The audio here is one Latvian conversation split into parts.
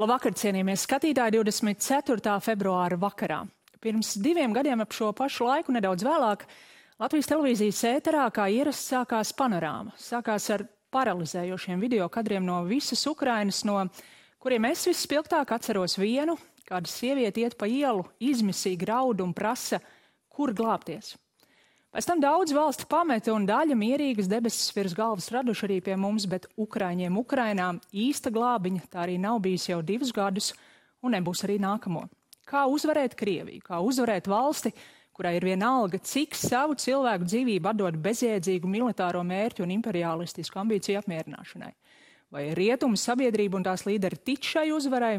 Labvakar, cienījamies skatītāji, 24. februāra vakarā. Pirms 2 gadiem ap šo pašu laiku, nedaudz vēlāk, Latvijas televīzijas ēterā kā ierasts sākās panorāma. Sākās ar paralizējošiem video kadriem no visas Ukrainas, no kuriem es vispilgtāk atceros vienu, kāda sieviete iet pa ielu, izmisīgi raud un prasa, kur glābties. Pēc tam daudz valsti pameta un daļa mierīgas debesis virs galvas raduši arī pie mums, bet Ukraiņiem Ukrainā īsta glābiņa tā arī nav bijis jau 2 gadus un nebūs arī nākamo. Kā uzvarēt Krieviju, kā uzvarēt valsti, kurai ir vienalga, cik savu cilvēku dzīvību atdod bezjēdzīgu militāro mērķu un imperialistisku ambīciju apmierināšanai? Vai rietumu sabiedrība un tās līderi tic šai uzvarai?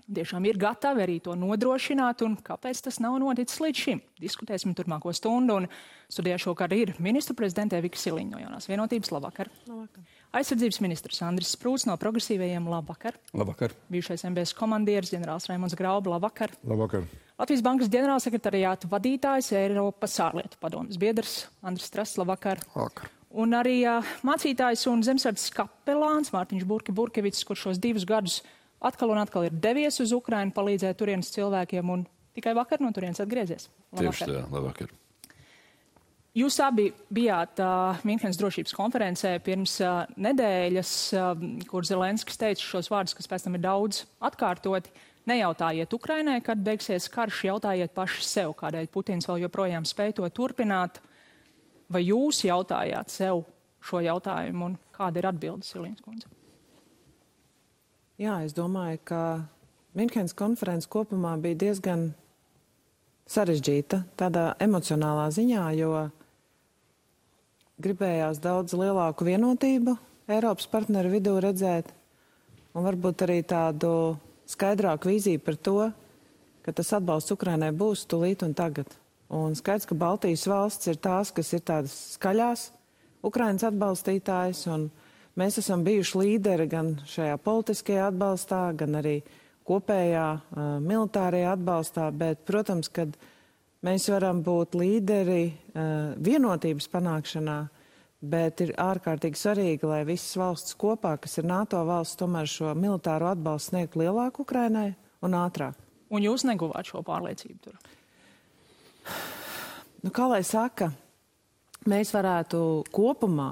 Tiešām ir gatavi arī to nodrošināt, un kāpēc tas nav noticis līdz šim? Diskutēsim turpmāko stundu, un studijā šokar ir ministru prezidentē Vika Siliņa no Jaunās vienotības. Labvakar. Labvakar. Aizsardzības ministrs Andris Sprūts no Progresīvajiem. Labvakar. Labvakar. Bijušais MBS komandieris ģenerālis Raimonds Grauba. Labvakar. Labvakar. Latvijas bankas ģenerālsekretariāta vadītājs, Eiropas ārlietu padomes biedrs Andris Strass. Labvakar. Labvakar. Un arī mācītājs un zemesardzes kapelāns Mārtiņš Burkevics, kurš šos 2 gadus atkal un atkal ir devies uz Ukrainu, palīdzēt turienes cilvēkiem un tikai vakar no turienes atgriezies. Tieši tā, labvakar. Jūs abi bijāt Minhenes drošības konferencē pirms nedēļas, kur Zelenskis teica šos vārdus, kas pēc tam ir daudz atkārtoti. Nejautājiet Ukrainai, kad beigsies karš, jautājiet paši sev, kādēļ Putins vēl joprojām spēj to turpināt. Vai jūs jautājāt sev šo jautājumu un kāda ir atbilde, Silīnas kundze? Jā, es domāju, ka Minhenes konference kopumā bija diezgan sarežģīta tādā emocionālā ziņā, jo gribējās daudz lielāku vienotību Eiropas partneru vidū redzēt un varbūt arī tādu skaidrāku vīziju par to, ka tas atbalsts Ukrainai būs tūlīt un tagad. Un skaidrs, ka Baltijas valsts ir tās, kas ir tādas skaļās Ukrainas atbalstītājas, un mēs esam bijuši līderi gan šajā politiskajā atbalstā, gan arī kopējā militārajā atbalstā, bet, protams, kad mēs varam būt līderi vienotības panākšanā, bet ir ārkārtīgi svarīgi, lai visas valstis kopā, kas ir NATO valsts, tomēr šo militāro atbalstu sniegt lielāku Ukrainai un ātrāk. Un jūs neguvāt šo pārliecību tur? Nu, kā lai saka, mēs varētu kopumā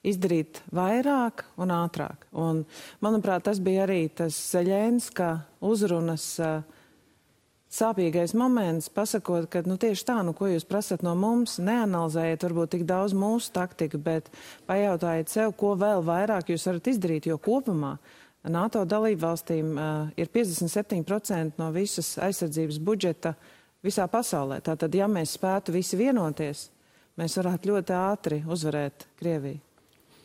izdarīt vairāk un ātrāk. Un, manuprāt, tas bija arī tas Zeļenska uzrunas sāpīgais moments, pasakot, ka tieši tā, ko jūs prasat no mums, neanalizējiet varbūt tik daudz mūsu taktiku, bet pajautājiet sev, ko vēl vairāk jūs varat izdarīt, jo kopumā NATO dalību valstīm ir 57% no visas aizsardzības budžeta visā pasaulē. Tātad, ja mēs spētu visi vienoties, mēs varētu ļoti ātri uzvarēt Krieviju.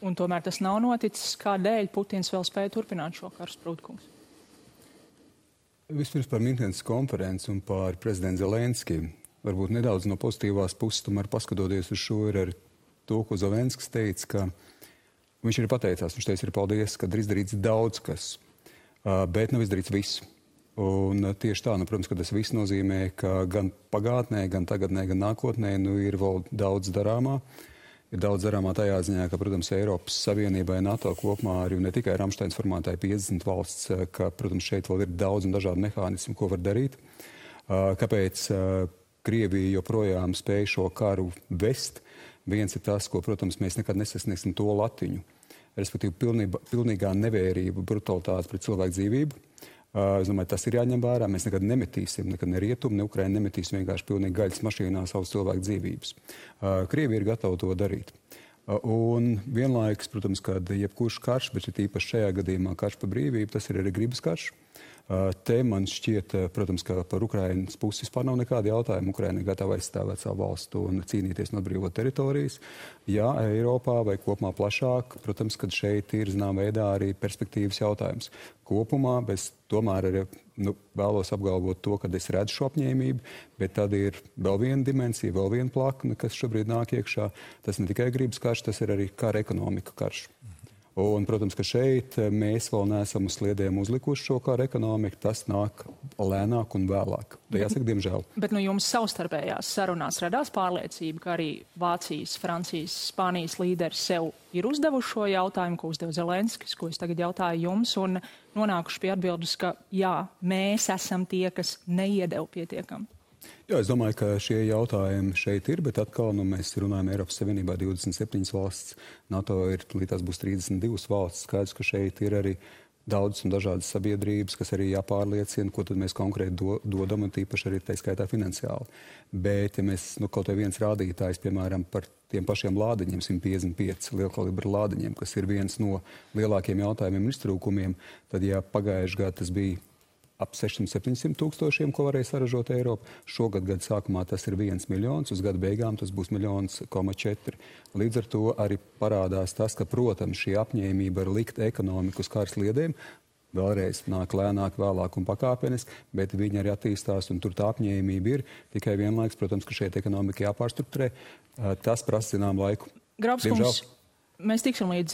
Un tomēr tas nav noticis, kādēļ Putins vēl spēja turpināt šo karu, Sprūtkungs? Vispirms par Minhenes konferenci un par prezidentu Zelenski. Varbūt nedaudz no pozitīvās puses, tomēr paskatoties uz šo ir ar to, ko Zelenskis teica, ka viņš ir pateicās, viņš teica, ir paldies, ka ir izdarīts daudz kas, bet nav izdarīts viss. Un tieši tā, protams, ka tas viss nozīmē, ka gan pagātnē, gan tagadnē, gan nākotnē ir vēl daudz darāmā. Ir daudz darāmā tajā ziņā, ka, protams, Eiropas Savienībai NATO kopumā arī ne tikai Ramšteins formātā ir 50 valsts, ka, protams, šeit vēl ir daudz un dažādi mehānismi, ko var darīt. Kāpēc Krievija joprojām spēj šo karu vest? Viens ir tas, ko, protams, mēs nekad nesasniegsim to latiņu. Respektīvi, pilnīgā nevērība, brutalitāte pret cilvēku dzīvību. Es domāju, tas ir jāņem vērā. Mēs nekad nemetīsim, nekad ne rietumu, ne Ukrainu nemetīsim vienkārši pilnīgi gaļas mašīnā savus cilvēku dzīvības. Krievija ir gatava to darīt. Un vienlaikus, protams, kad jebkurš karš, bet ir īpaši šajā gadījumā karš par brīvību, tas ir arī gribas karš. Te man šķiet, protams, ka par Ukrainas pusi vispār nav nekāda jautājuma. Ukraina ir gatava aizstāvēt savu valstu un cīnīties un atbrīvot teritorijas. Jā, Eiropā vai kopumā plašāk, protams, kad šeit ir, zinām, veidā arī perspektīvas jautājums. Kopumā, bet tomēr arī vēlos apgalvot to, ka es redzu šo apņēmību, bet tad ir vēl viena dimensija, vēl viena plakne, kas šobrīd nāk iekšā. Tas ne tikai gribas karš, tas ir arī kara ekonomika karš. Un, protams, ka šeit mēs vēl neesam uz sliedēm uzlikuši šo karu ekonomiku, tas nāk lēnāk un vēlāk. Jāsaka, diemžēl. Bet jums savstarpējās sarunās radās pārliecība, ka arī Vācijas, Francijas, Spānijas līderi sev ir uzdevuši šo jautājumu, ko uzdeva Zelenskis, ko es tagad jautāju jums, un nonākuši pie atbildes, ka jā, mēs esam tie, kas neiedev pietiekami. Jā, es domāju, ka šie jautājumi šeit ir, bet atkal mēs runājam Eiropas Savienībā 27 valsts, NATO ir, līdz tās būs 32 valsts. Skaidrs, ka šeit ir arī daudzas un dažādas sabiedrības, kas arī jāpārliecina, ko tad mēs konkrēti dodam, un tīpaši arī tā skaitā finansiāli. Bet, ja mēs, kaut vai viens rādītājs, piemēram, par tiem pašiem lādiņiem, 155 lielkalibra lādiņiem, kas ir viens no lielākiem jautājumiem un iztrūkumiem, tad, ja pagājuši gadu tas bija ap 600–700 tūkstošiem, ko varēja saražot Eiropa. Šogad gada sākumā tas ir 1 miljons, uz gada beigām tas būs 1,4 miljoni. Līdz ar to arī parādās tas, ka, protams, šī apņēmība ir likt ekonomiku uz kāras sliedēm, vēlreiz nāk lēnāk, vēlāk un pakāpeniski, bet viņi arī attīstās, un tur tā apņēmība ir. Tikai vienlaiks, protams, ka šeit ekonomika jāpārstrukturē. Tas prasa zinām laiku. Grabskungs, mēs tiksim līdz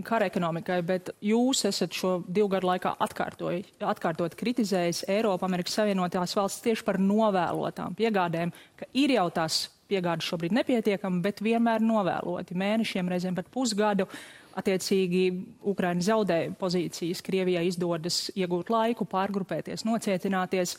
kara ekonomikai, bet jūs esat šo 2 gadu laikā atkārtot kritizējis Eiropu, Amerikas Savienotās valsts tieši par novēlotām piegādēm, ka ir jau tās piegādes šobrīd nepietiekami, bet vienmēr novēloti mēnešiem, reizēm pat pusgadu. Attiecīgi Ukraina zaudē pozīcijas, Krievijai izdodas iegūt laiku, pārgrupēties, nocietināties.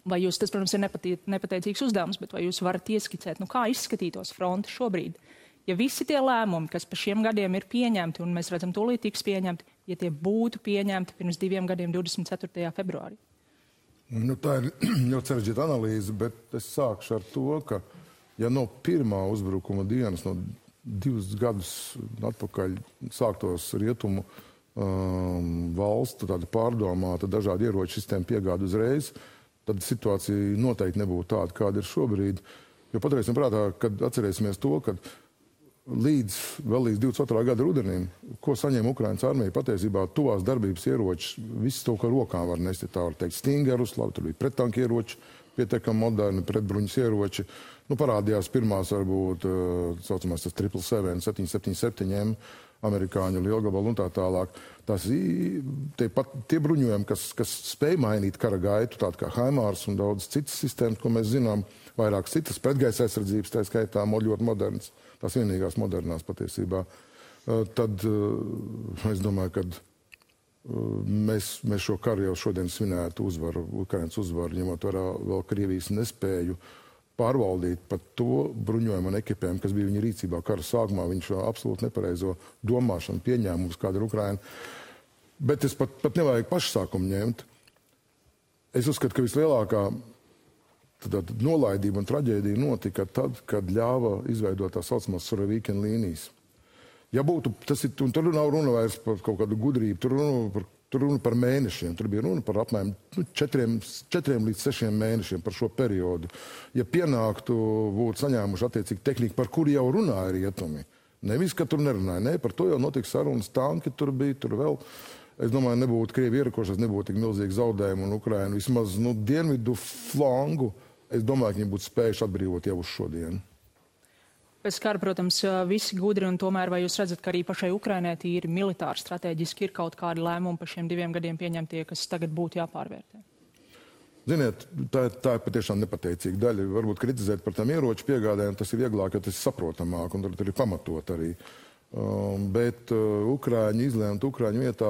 Vai jūs, tas, protams, ir nepateicīgs uzdevums, bet vai jūs varat ieskicēt, kā izskatītos fronte šobrīd? Ja visi tie lēmumi, kas pa šiem gadiem ir pieņemti, un mēs redzam, tūlīt tiks pieņemti, ja tie būtu pieņemti pirms 2 gadiem, 24. februārī? Tā ir ļoti sarežģīta analīze, bet es sākšu ar to, ka, ja no pirmā uzbrukuma dienas, no 2 gadus atpakaļ sāktos rietumu valstu tāda pārdomāta dažādu ieroču sistēmu piegādu uzreiz, tad situācija noteikti nebūtu tāda, kāda ir šobrīd. Jo paturēsim prātā, kad atcerēsimies to, ka līdz 22. gada rudenim, ko saņēma Ukrainas armija, patiesībā tuvās darbības ieroči, visu to, ka rokām var nest, tā var teikt, Stingerus, labi, tur bija prettanki ieroči, pietiekami moderni, pretbruņas ieroči. Parādījās pirmās, varbūt, saucamās tas 777, 777M, amerikāņu lielgabalu un tā tālāk. Tie bruņojumi, kas spēj mainīt kara gaitu, tādi kā Haimārs un daudz citas sistēmas, ko mēs zinām, vairāk citas pretgaisa aizsardzības, tā skaitā ļoti modernas, tās vienīgās modernās patiesībā. Tad es domāju, ka mēs šo karu jau šodien svinētu uzvaru, Ukrainas uzvaru, ņemot vērā vēl Krievijas nespēju pārvaldīt pat to bruņojumu un ekipējumu, kas bija viņa rīcībā kara sākumā, viņš absolūti nepareizo domāšanu pieņēmumus, kāda ir Ukraina. Bet es pat nevajag pašsākumu ņemt. Es uzskatu, ka vislielākā nolaidība un traģēdija notika tad, kad ļāva izveidot tā saucamās Surovikin līnijas. Ja būtu, un tur nav runa vairs par kaut kādu gudrību, tur runa par mēnešiem, tur bija runa par apmēram 4 līdz 6 mēnešiem par šo periodu. Ja pienāktu, būtu saņēmuši attiecīgi tehniku, par kuru jau runāja rietumi. Nevis, ka tur nerunāja, par to jau notika sarunas, tanki tur bija, tur vēl. Es domāju, nebūtu Krievi ierakošās, nebūtu tik milzīgi zaudējumi un Ukraina vismaz dienvidu flangu. Es domāju, ka viņi būtu spējuši atbrīvot jau uz šodienu. Pēc kara, protams, visi gudri, un tomēr vai jūs redzat, ka arī pašai Ukrainai tīri militāri strateģiski ir kaut kādi lēmumi par šiem 2 gadiem pieņemtie, kas tagad būtu jāpārvērtē? Ziniet, tā ir patiešām nepateicīga daļa. Varbūt kritizēt par tām ieroču piegādēm, tas ir vieglāk, ka tas ir saprotamāk, un tur ir pamatot arī. Bet Ukraiņi izlēma Ukraiņu vietā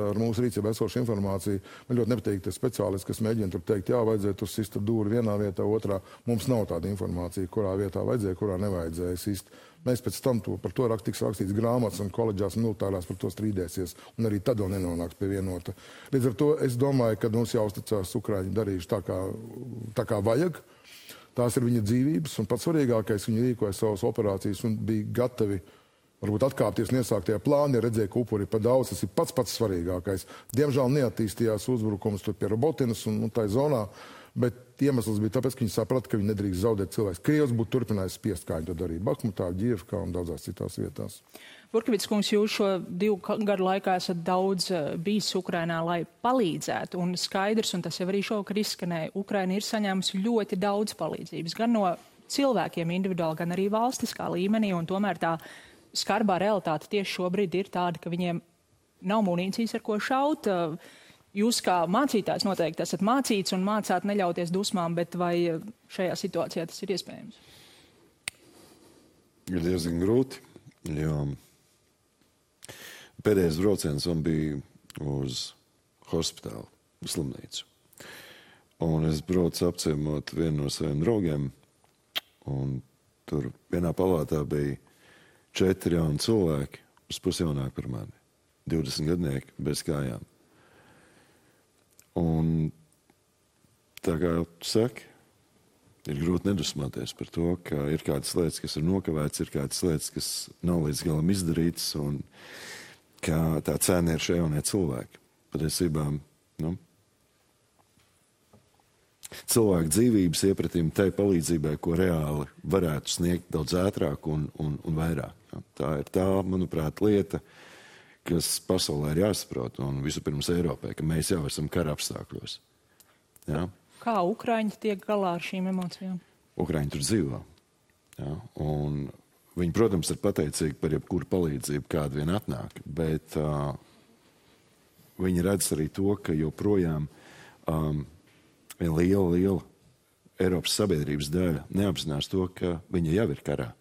ar mūsu rīcībā esošu informāciju. Man ļoti nepatīk tie speciālisti, kas mēģina tur teikt, jā, vajadzēja tur sist dūri vienā vietā, otrā. Mums nav tāda informācija, kurā vietā vajadzēja, kurā nevajadzēja sist. Mēs pēc tam par to tiks rakstīts grāmatas un koledžās militārās par to strīdēsies, un arī tad vēl nenonāks pie vienota. Līdz ar to es domāju, ka mums jāuzticās Ukraiņi darījuši tā kā vajag. Tās ir viņa dzīvības, un pats svarīgākais, viņi rīkoja savas operācijas un bija gatavi varbūt atkāpties un iesākt tie plāni, redzēja, ka upuri ir pa daudz, tas ir pats svarīgākais. Diemžēl neattīstījās uzbrukums tur pie Robotinas un tā zonā, bet iemesls bija tāpēc, ka viņi saprata, ka viņi nedrīkst zaudēt cilvēks. Krievs būtu turpinājis spiest, kā viņi to darīja Bakhmutā, Ģievkā un daudzās citās vietās. Burkevits kungs, jūs šo 2 gadu laikā esat daudz bijis Ukrainā, lai palīdzētu, un skaidrs, un tas jau arī šovakar izskanēja, Ukraina ir saņēmusi ļoti daudz palīdzības, gan no cilvēkiem individuāli, gan arī valstiskā līmenī, un tomēr tā skarbā realitāte tieši šobrīd ir tāda, ka viņiem nav munīcijas, ar ko šaut. Jūs kā mācītājs noteikti esat mācīts un mācāt neļauties dusmām, bet vai šajā situācijā tas ir iespējams? Ir diezgan grūti, jo pēdējais brauciens man bija uz hospitālu, uz slimnīcu. Un es braucu apciemot vienu no saviem draugiem, un tur vienā palātā bija 4 jauni cilvēki, uz pusi jaunāki par mani, 20 gadnieki bez kājām. Un tā kā tu saki, ir grūti nedusmoties par to, ka ir kādas lietas, kas ir nokavētas, ir kādas lietas, kas nav līdz galam izdarītas, un ka tā cena ir šie jaunie cilvēki. Patiesībā, cilvēku dzīvības iepratīm tai palīdzībai, ko reāli varētu sniegt daudz ātrāk un vairāk. Ja. Tā ir tā, manuprāt, lieta, kas pasaulē ir jāsaprot, un vispirms Eiropai, ka mēs jau esam kara apstākļos. Ja. Kā Ukraiņi tiek galā ar šīm emocijām? Ukraiņi tur dzīvo. Ja. Un viņi, protams, ir pateicīgi par jebkuru palīdzību, kāda vien atnāk, bet viņi redz arī to, ka joprojām viena liela Eiropas sabiedrības daļa neapzinās to, ka viņa jau ir karā.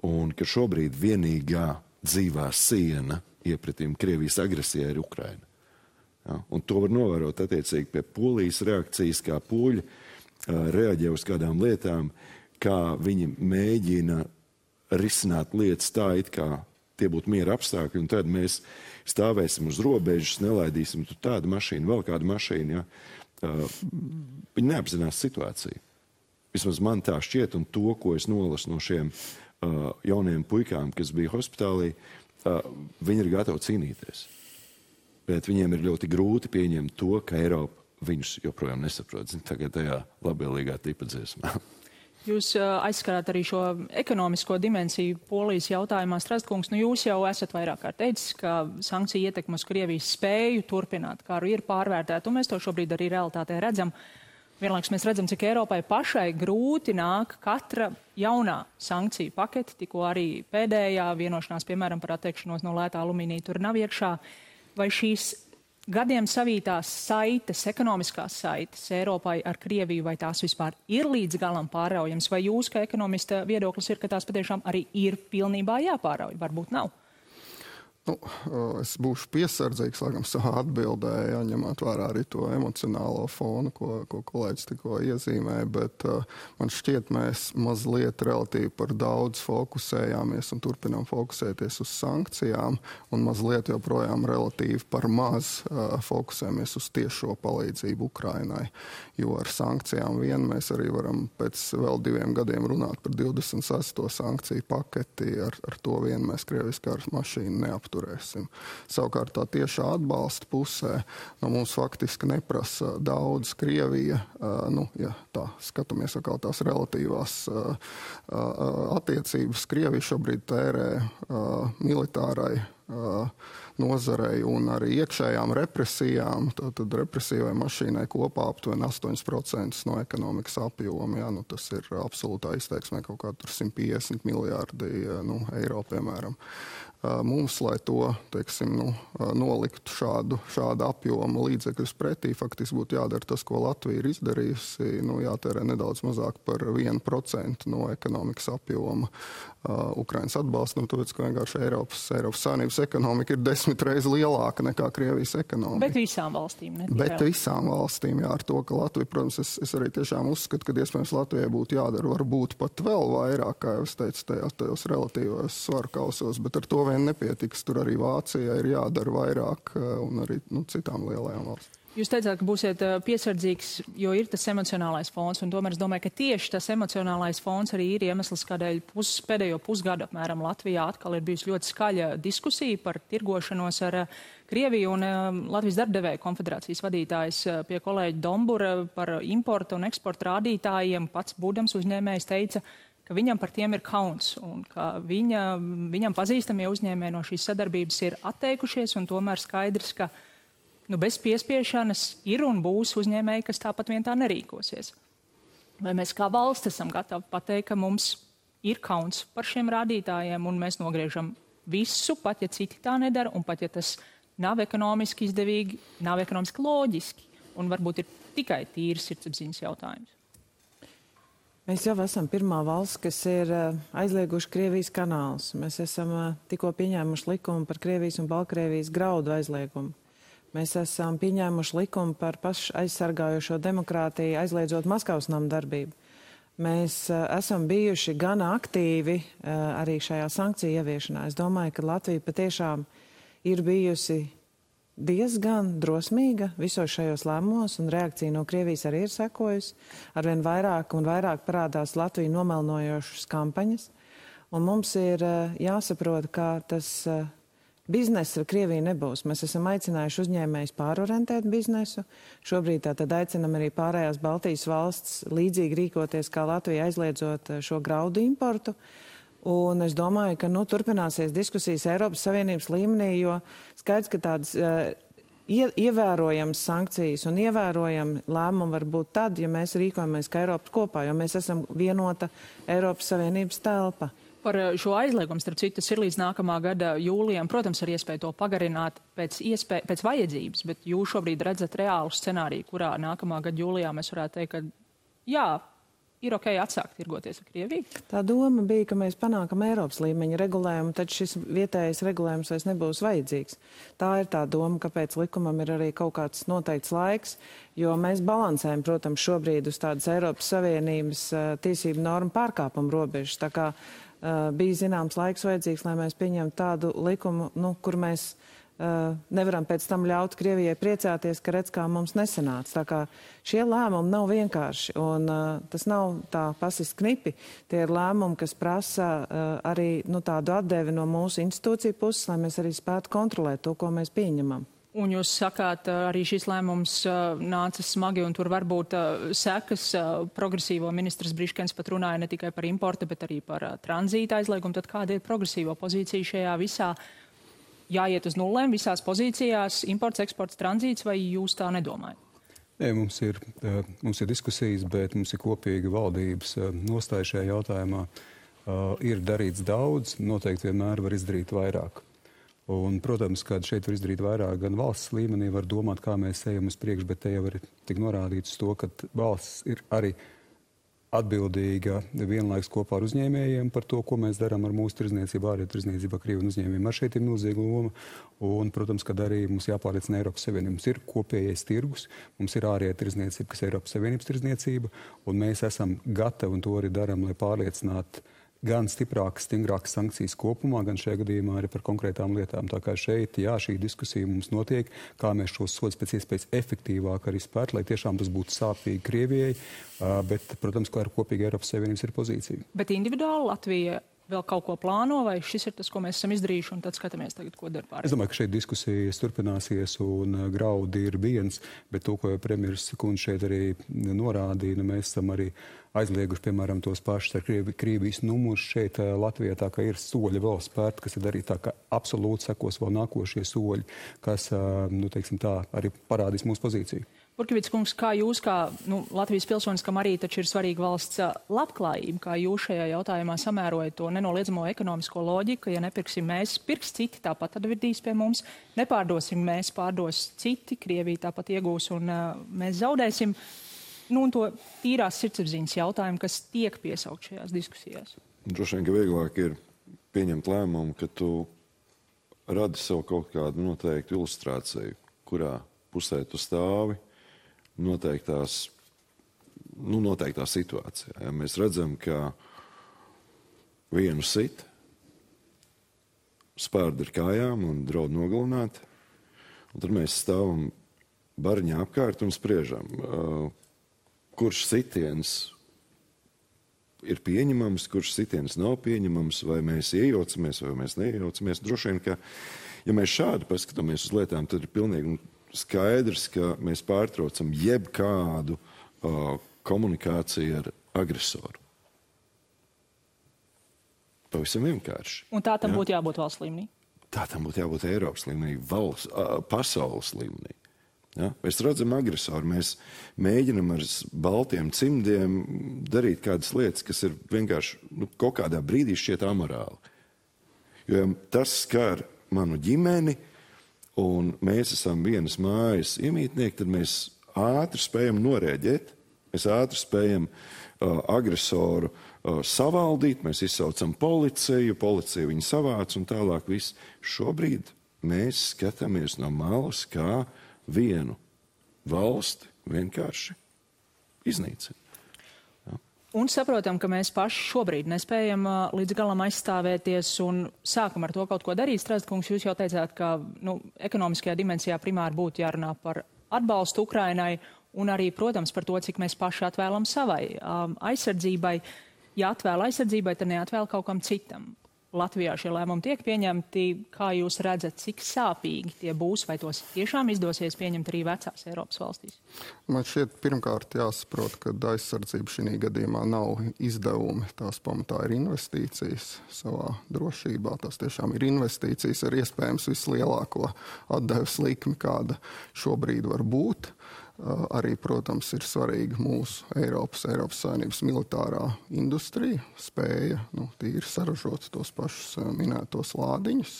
Un ka šobrīd vienīgā dzīvā siena iepratīm Krievijas agresijai ir Ukraina. Ja? Un to var novērot attiecīgi pie Polijas reakcijas, kā poļi reaģē uz kādām lietām, kā viņi mēģina risināt lietas tā, it kā tie būtu miera apstākļi, un tad mēs stāvēsim uz robežas, nelaidīsim tu tādu mašīnu, vēl kādu mašīnu. Ja? Viņi neapzinās situāciju. Vismaz man tā šķiet, un to, ko es nolasu no šiem jauniem puikām, kas bija hospitālī, viņi ir gatavi cīnīties. Bet viņiem ir ļoti grūti pieņemt to, ka Eiropa viņus joprojām nesaprot. Tagad tajā labvēlīgā tipa dziesmā. Jūs aizskarāt arī šo ekonomisko dimensiju Polijas jautājumā. Strastkungs, jūs jau esat vairāk kārt teicis, ka sankciju ietekme uz Krievijas spēju turpināt karu ir pārvērtēta, un mēs to šobrīd arī realitātē redzam. Vienlaikus mēs redzam, cik Eiropai pašai grūti nāk katra jaunā sankciju pakete, tikko arī pēdējā vienošanās, piemēram, par atteikšanos no lētā alumīnija tur nav iekšā. Vai šīs gadiem savītās saites, ekonomiskās saites Eiropai ar Krieviju, vai tās vispār ir līdz galam pāraujams, vai jūs, kā ekonomista viedoklis ir, ka tās patiešām arī ir pilnībā jāpārauj? Varbūt nav. Es būšu piesardzīgs, laikam, savā atbildē, ņemot vērā arī to emocionālo fonu, ko kolēģis tikko iezīmēja, bet man šķiet, mēs mazliet relatīvi par daudz fokusējāmies un turpinām fokusēties uz sankcijām, un mazliet joprojām relatīvi par maz fokusējamies uz tiešo palīdzību Ukrainai, jo ar sankcijām vien mēs arī varam pēc vēl 2 gadiem runāt par 26. sankciju paketi, ar to vien mēs Krievijas karas mašīnu neapturēsim. Savukārt tā tiešā atbalsta pusē mums faktiski neprasa daudz. Krievija, ja tā skatāmies atkal tās relatīvās attiecības, Krievija šobrīd tērē militārai nozarei un arī iekšējām represijām, tad represīvai mašīnai kopā aptuveni 8% no ekonomikas apjoma. Ja, tas ir absolūtā izteiksmē kaut kā 150 miljārdi eiro, piemēram. Mums, lai to, noliktu šādu apjomu līdzekļus pretī, faktiski būtu jādara tas, ko Latvija ir izdarījusi, jātērē nedaudz mazāk par 1% no ekonomikas apjoma Ukrainas atbalstam, tāpēc, ka vienkārši Eiropas Savienības ekonomika ir 10 reizes lielāka nekā Krievijas ekonomika. Bet visām valstīm, ne? Bet visām valstīm, ar to, ka Latvija, protams, es arī tiešām uzskatu, ka iespējams Latvijai būtu jādara varbūt pat vēl vairāk, kā jau es teicu, tajos relatīvos svaru kausos, bet ar to vien nepietiks. Tur arī Vācijai ir jādara vairāk un arī citām lielajām valstīm. Jūs teicāt, ka būsiet piesardzīgs, jo ir tas emocionālais fons, un tomēr es domāju, ka tieši tas emocionālais fons arī ir iemesls, kādēļ pēdējo pusgadu apmēram Latvijā atkal ir bijusi ļoti skaļa diskusija par tirgošanos ar Krieviju, un Latvijas darbdevēju konfederācijas vadītājs pie kolēģa Dombura par importa un eksporta rādītājiem pats būdams uzņēmējs teica, ka viņam par tiem ir kauns, un ka viņam pazīstamie uzņēmēji no šīs sadarbības ir atteikušies, un tomēr skaidrs, ka bez piespiešanas ir un būs uzņēmēji, kas tāpat vien tā nerīkosies. Vai mēs kā valsts esam gatavi pateikt, ka mums ir kauns par šiem rādītājiem, un mēs nogriežam visu, pat ja citi tā nedara, un pat ja tas nav ekonomiski izdevīgi, nav ekonomiski loģiski, un varbūt ir tikai tīri sirdsapziņas jautājums. Mēs jau esam pirmā valsts, kas ir aizlieguši Krievijas kanālus. Mēs esam tikko pieņēmuši likumu par Krievijas un Baltkrievijas graudu aizliegumu. Mēs esam pieņēmuši likumu par pašu aizsargājošo demokrātiju, aizliedzot Maskavas namu darbību. Mēs esam bijuši gana aktīvi arī šajā sankciju ieviešanā. Es domāju, ka Latvija patiešām ir bijusi diezgan drosmīga visos šajos lēmumos, un reakcija no Krievijas arī ir sekojusi. Arvien vairāk un vairāk parādās Latviju nomelnojošas kampaņas, un mums ir jāsaprot, ka tas biznesa ar Krieviju nebūs. Mēs esam aicinājuši uzņēmējus pārorientēt biznesu. Šobrīd tātad aicinam arī pārējās Baltijas valsts līdzīgi rīkoties kā Latvija, aizliedzot šo graudu importu. Un es domāju, ka turpināsies diskusijas Eiropas Savienības līmenī, jo skaidrs, ka tādas ievērojams sankcijas un ievērojami lēmumi var būt tad, ja mēs rīkojamies kā Eiropas kopā, jo mēs esam vienota Eiropas Savienības telpa. Par šo aizliegumu, starp citu, tas ir līdz nākamā gada jūlijam. Protams, ar iespēju to pagarināt pēc vajadzības, bet jūs šobrīd redzat reālu scenāriju, kurā nākamā gada jūlijā mēs varētu teikt, ka jā, ir ok atsākt tirgoties ar Krieviju? Tā doma bija, ka mēs panākam Eiropas līmeņa regulējumu, tad šis vietējais regulējums vairs nebūs vajadzīgs. Tā ir tā doma, kāpēc likumam ir arī kaut kāds noteikts laiks, jo mēs balansējam, protams, šobrīd uz tādas Eiropas Savienības tiesību normu pārkāpumu robežas. Tā kā bija zināms laiks vajadzīgs, lai mēs pieņemtu tādu likumu, kur mēs nevaram pēc tam ļaut Krievijai priecāties, ka redz, kā mums nesanāca. Tā kā šie lēmumi nav vienkārši, un tas nav tā pasist knipi. Tie ir lēmumi, kas prasa arī tādu atdevi no mūsu institūciju puses, lai mēs arī spētu kontrolēt to, ko mēs pieņemam. Un jūs sakāt, arī šis lēmums nāca smagi, un tur varbūt sekas. Progresīvo ministrs Briškens pat runāja ne tikai par importu, bet arī par tranzīta aizliegumu. Tad kāda ir progresīvo pozīcija šajā visā? Jāiet uz nulēm visās pozīcijās, imports, eksports, tranzīts, vai jūs tā nedomājat? Nē, mums ir diskusijas, bet mums ir kopīga valdības nostāja šajā jautājumā. Ir darīts daudz, noteikti vienmēr var izdarīt vairāk. Un, protams, kad šeit var izdarīt vairāk, gan valsts līmenī var domāt, kā mēs ejam uz priekšu, bet te jau ir tik norādīts to, ka valsts ir arī atbildīga vienlaiks kopā ar uzņēmējiem par to, ko mēs darām ar mūsu tirdzniecību, ārēju tirdzniecību ar Krievu un uzņēmējiem. Ar šeit ir milzīga loma, un, protams, kad arī mums jāpārliecina Eiropas Savienība. Mums ir kopējais tirgus, mums ir ārēja tirdzniecība, kas ir Eiropas Savienības tirdzniecība, un mēs esam gatavi, un to arī darām, lai pārliecinātu gan stiprākas, stingrākas sankcijas kopumā, gan šajā gadījumā arī par konkrētām lietām. Tā kā šeit, jā, šī diskusija mums notiek, kā mēs šos sodus pēc iespējas efektīvāk arī spērt, lai tiešām tas būtu sāpīgi Krievijai, bet, protams, kā ar kopīgi Eiropas Savienības ir pozīcija. Bet individuāli Latvija vēl kaut ko plāno, vai šis ir tas, ko mēs esam izdarījuši, un tad skatāmies tagad, ko dara pārējais? Es domāju, ka šeit diskusijas turpināsies, un graudi ir viens, bet to, ko premjeras kundze šeit arī norādīja, mēs esam arī aizlieguši, piemēram, tos pašus ar Krievijas numurus šeit Latvijā, tā kā ir soļi vēl spērti, kas ir darīti tā, ka absolūti sekos vēl nākošie soļi, kas, teiksim tā, arī parādīs mūsu pozīciju. Burkevits kungs, kā jūs, kā Latvijas pilsonis, kam arī taču ir svarīga valsts labklājība, kā jūs šajā jautājumā samērojat to nenoliedzamo ekonomisko loģiku, ja nepirksim mēs, pirks citi, tāpat atvedīs pie mums, nepārdosim mēs, pārdos citi, Krievija tāpat iegūs un mēs zaudēsim. Un to tīrās sirdsapziņas jautājumu, kas tiek piesaukt šajās diskusijās. Droši vien, ka vieglāk ir pieņemt lēmumu, ka tu radi sev kaut kādu noteiktu ilustrāciju, kurā pusē tu stāvi noteiktā situācijā. Ja mēs redzam, ka vienu sit, spērdi ar kājām un draud nogalināt, un tad mēs stāvam bariņā apkārt un spriežam, kurš sitiens ir pieņemams, kurš sitiens nav pieņemams, vai mēs iejaucamies, vai mēs neiejaucamies. Droši vien, ka, ja mēs šādi paskatāmies uz lietām, tad ir pilnīgi skaidrs, ka mēs pārtraucam jebkādu komunikāciju ar agresoru. Pavisam vienkārši. Un tā tam būtu jābūt valsts līmenī? Tā tam būtu jābūt Eiropas līmenī, pasaules līmenī. Ja? Mēs redzam agresoru, mēs mēģinam ar baltiem cimdiem darīt kādas lietas, kas ir vienkārši kaut kādā brīdī šķiet amorāli. Jo tas skar manu ģimeni, un mēs esam vienas mājas iemītnieki, tad mēs ātri spējam norēģēt, mēs ātri spējam agresoru savaldīt, mēs izsaucam policiju, policija viņu savāc un tālāk viss. Šobrīd mēs skatāmies no malas, kā vienu valsti vienkārši iznīcina. Un saprotam, ka mēs paši šobrīd nespējam līdz galam aizstāvēties un sākam ar to kaut ko darīt. Strazdkungs, jūs jau teicāt, ka ekonomiskajā dimensijā primāri būtu jārunā par atbalstu Ukrainai un arī, protams, par to, cik mēs paši atvēlam savai aizsardzībai. Ja atvēl aizsardzībai, tad neatvēl kaut kam citam. Latvijā šie lēmumi tiek pieņemti, kā jūs redzat, cik sāpīgi tie būs, vai tos tiešām izdosies pieņemt arī vecās Eiropas valstīs? Man šķiet, pirmkārt jāsaprot, ka aizsardzība šī gadījumā nav izdevumi. Tās pamatā ir investīcijas savā drošībā. Tās tiešām ir investīcijas ar iespējams vislielāko atdeves likmi, kāda šobrīd var būt. Arī, protams, ir svarīga mūsu Eiropas Savienības militārā industrija, spēja tīri saražot tos pašus minētos lādiņus.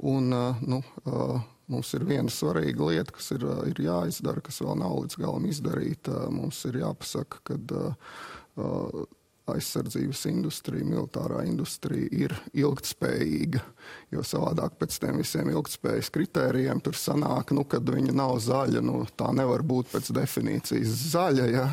Un mums ir viena svarīga lieta, kas ir jāizdara, kas vēl nav līdz galam izdarīta. Mums ir jāpasaka, ka aizsardzības industrija, militārā industrija ir ilgtspējīga, jo savādāk pēc tiem visiem ilgtspējas kritērijiem tur sanāk, kad viņa nav zaļa, tā nevar būt pēc definīcijas zaļa, ja?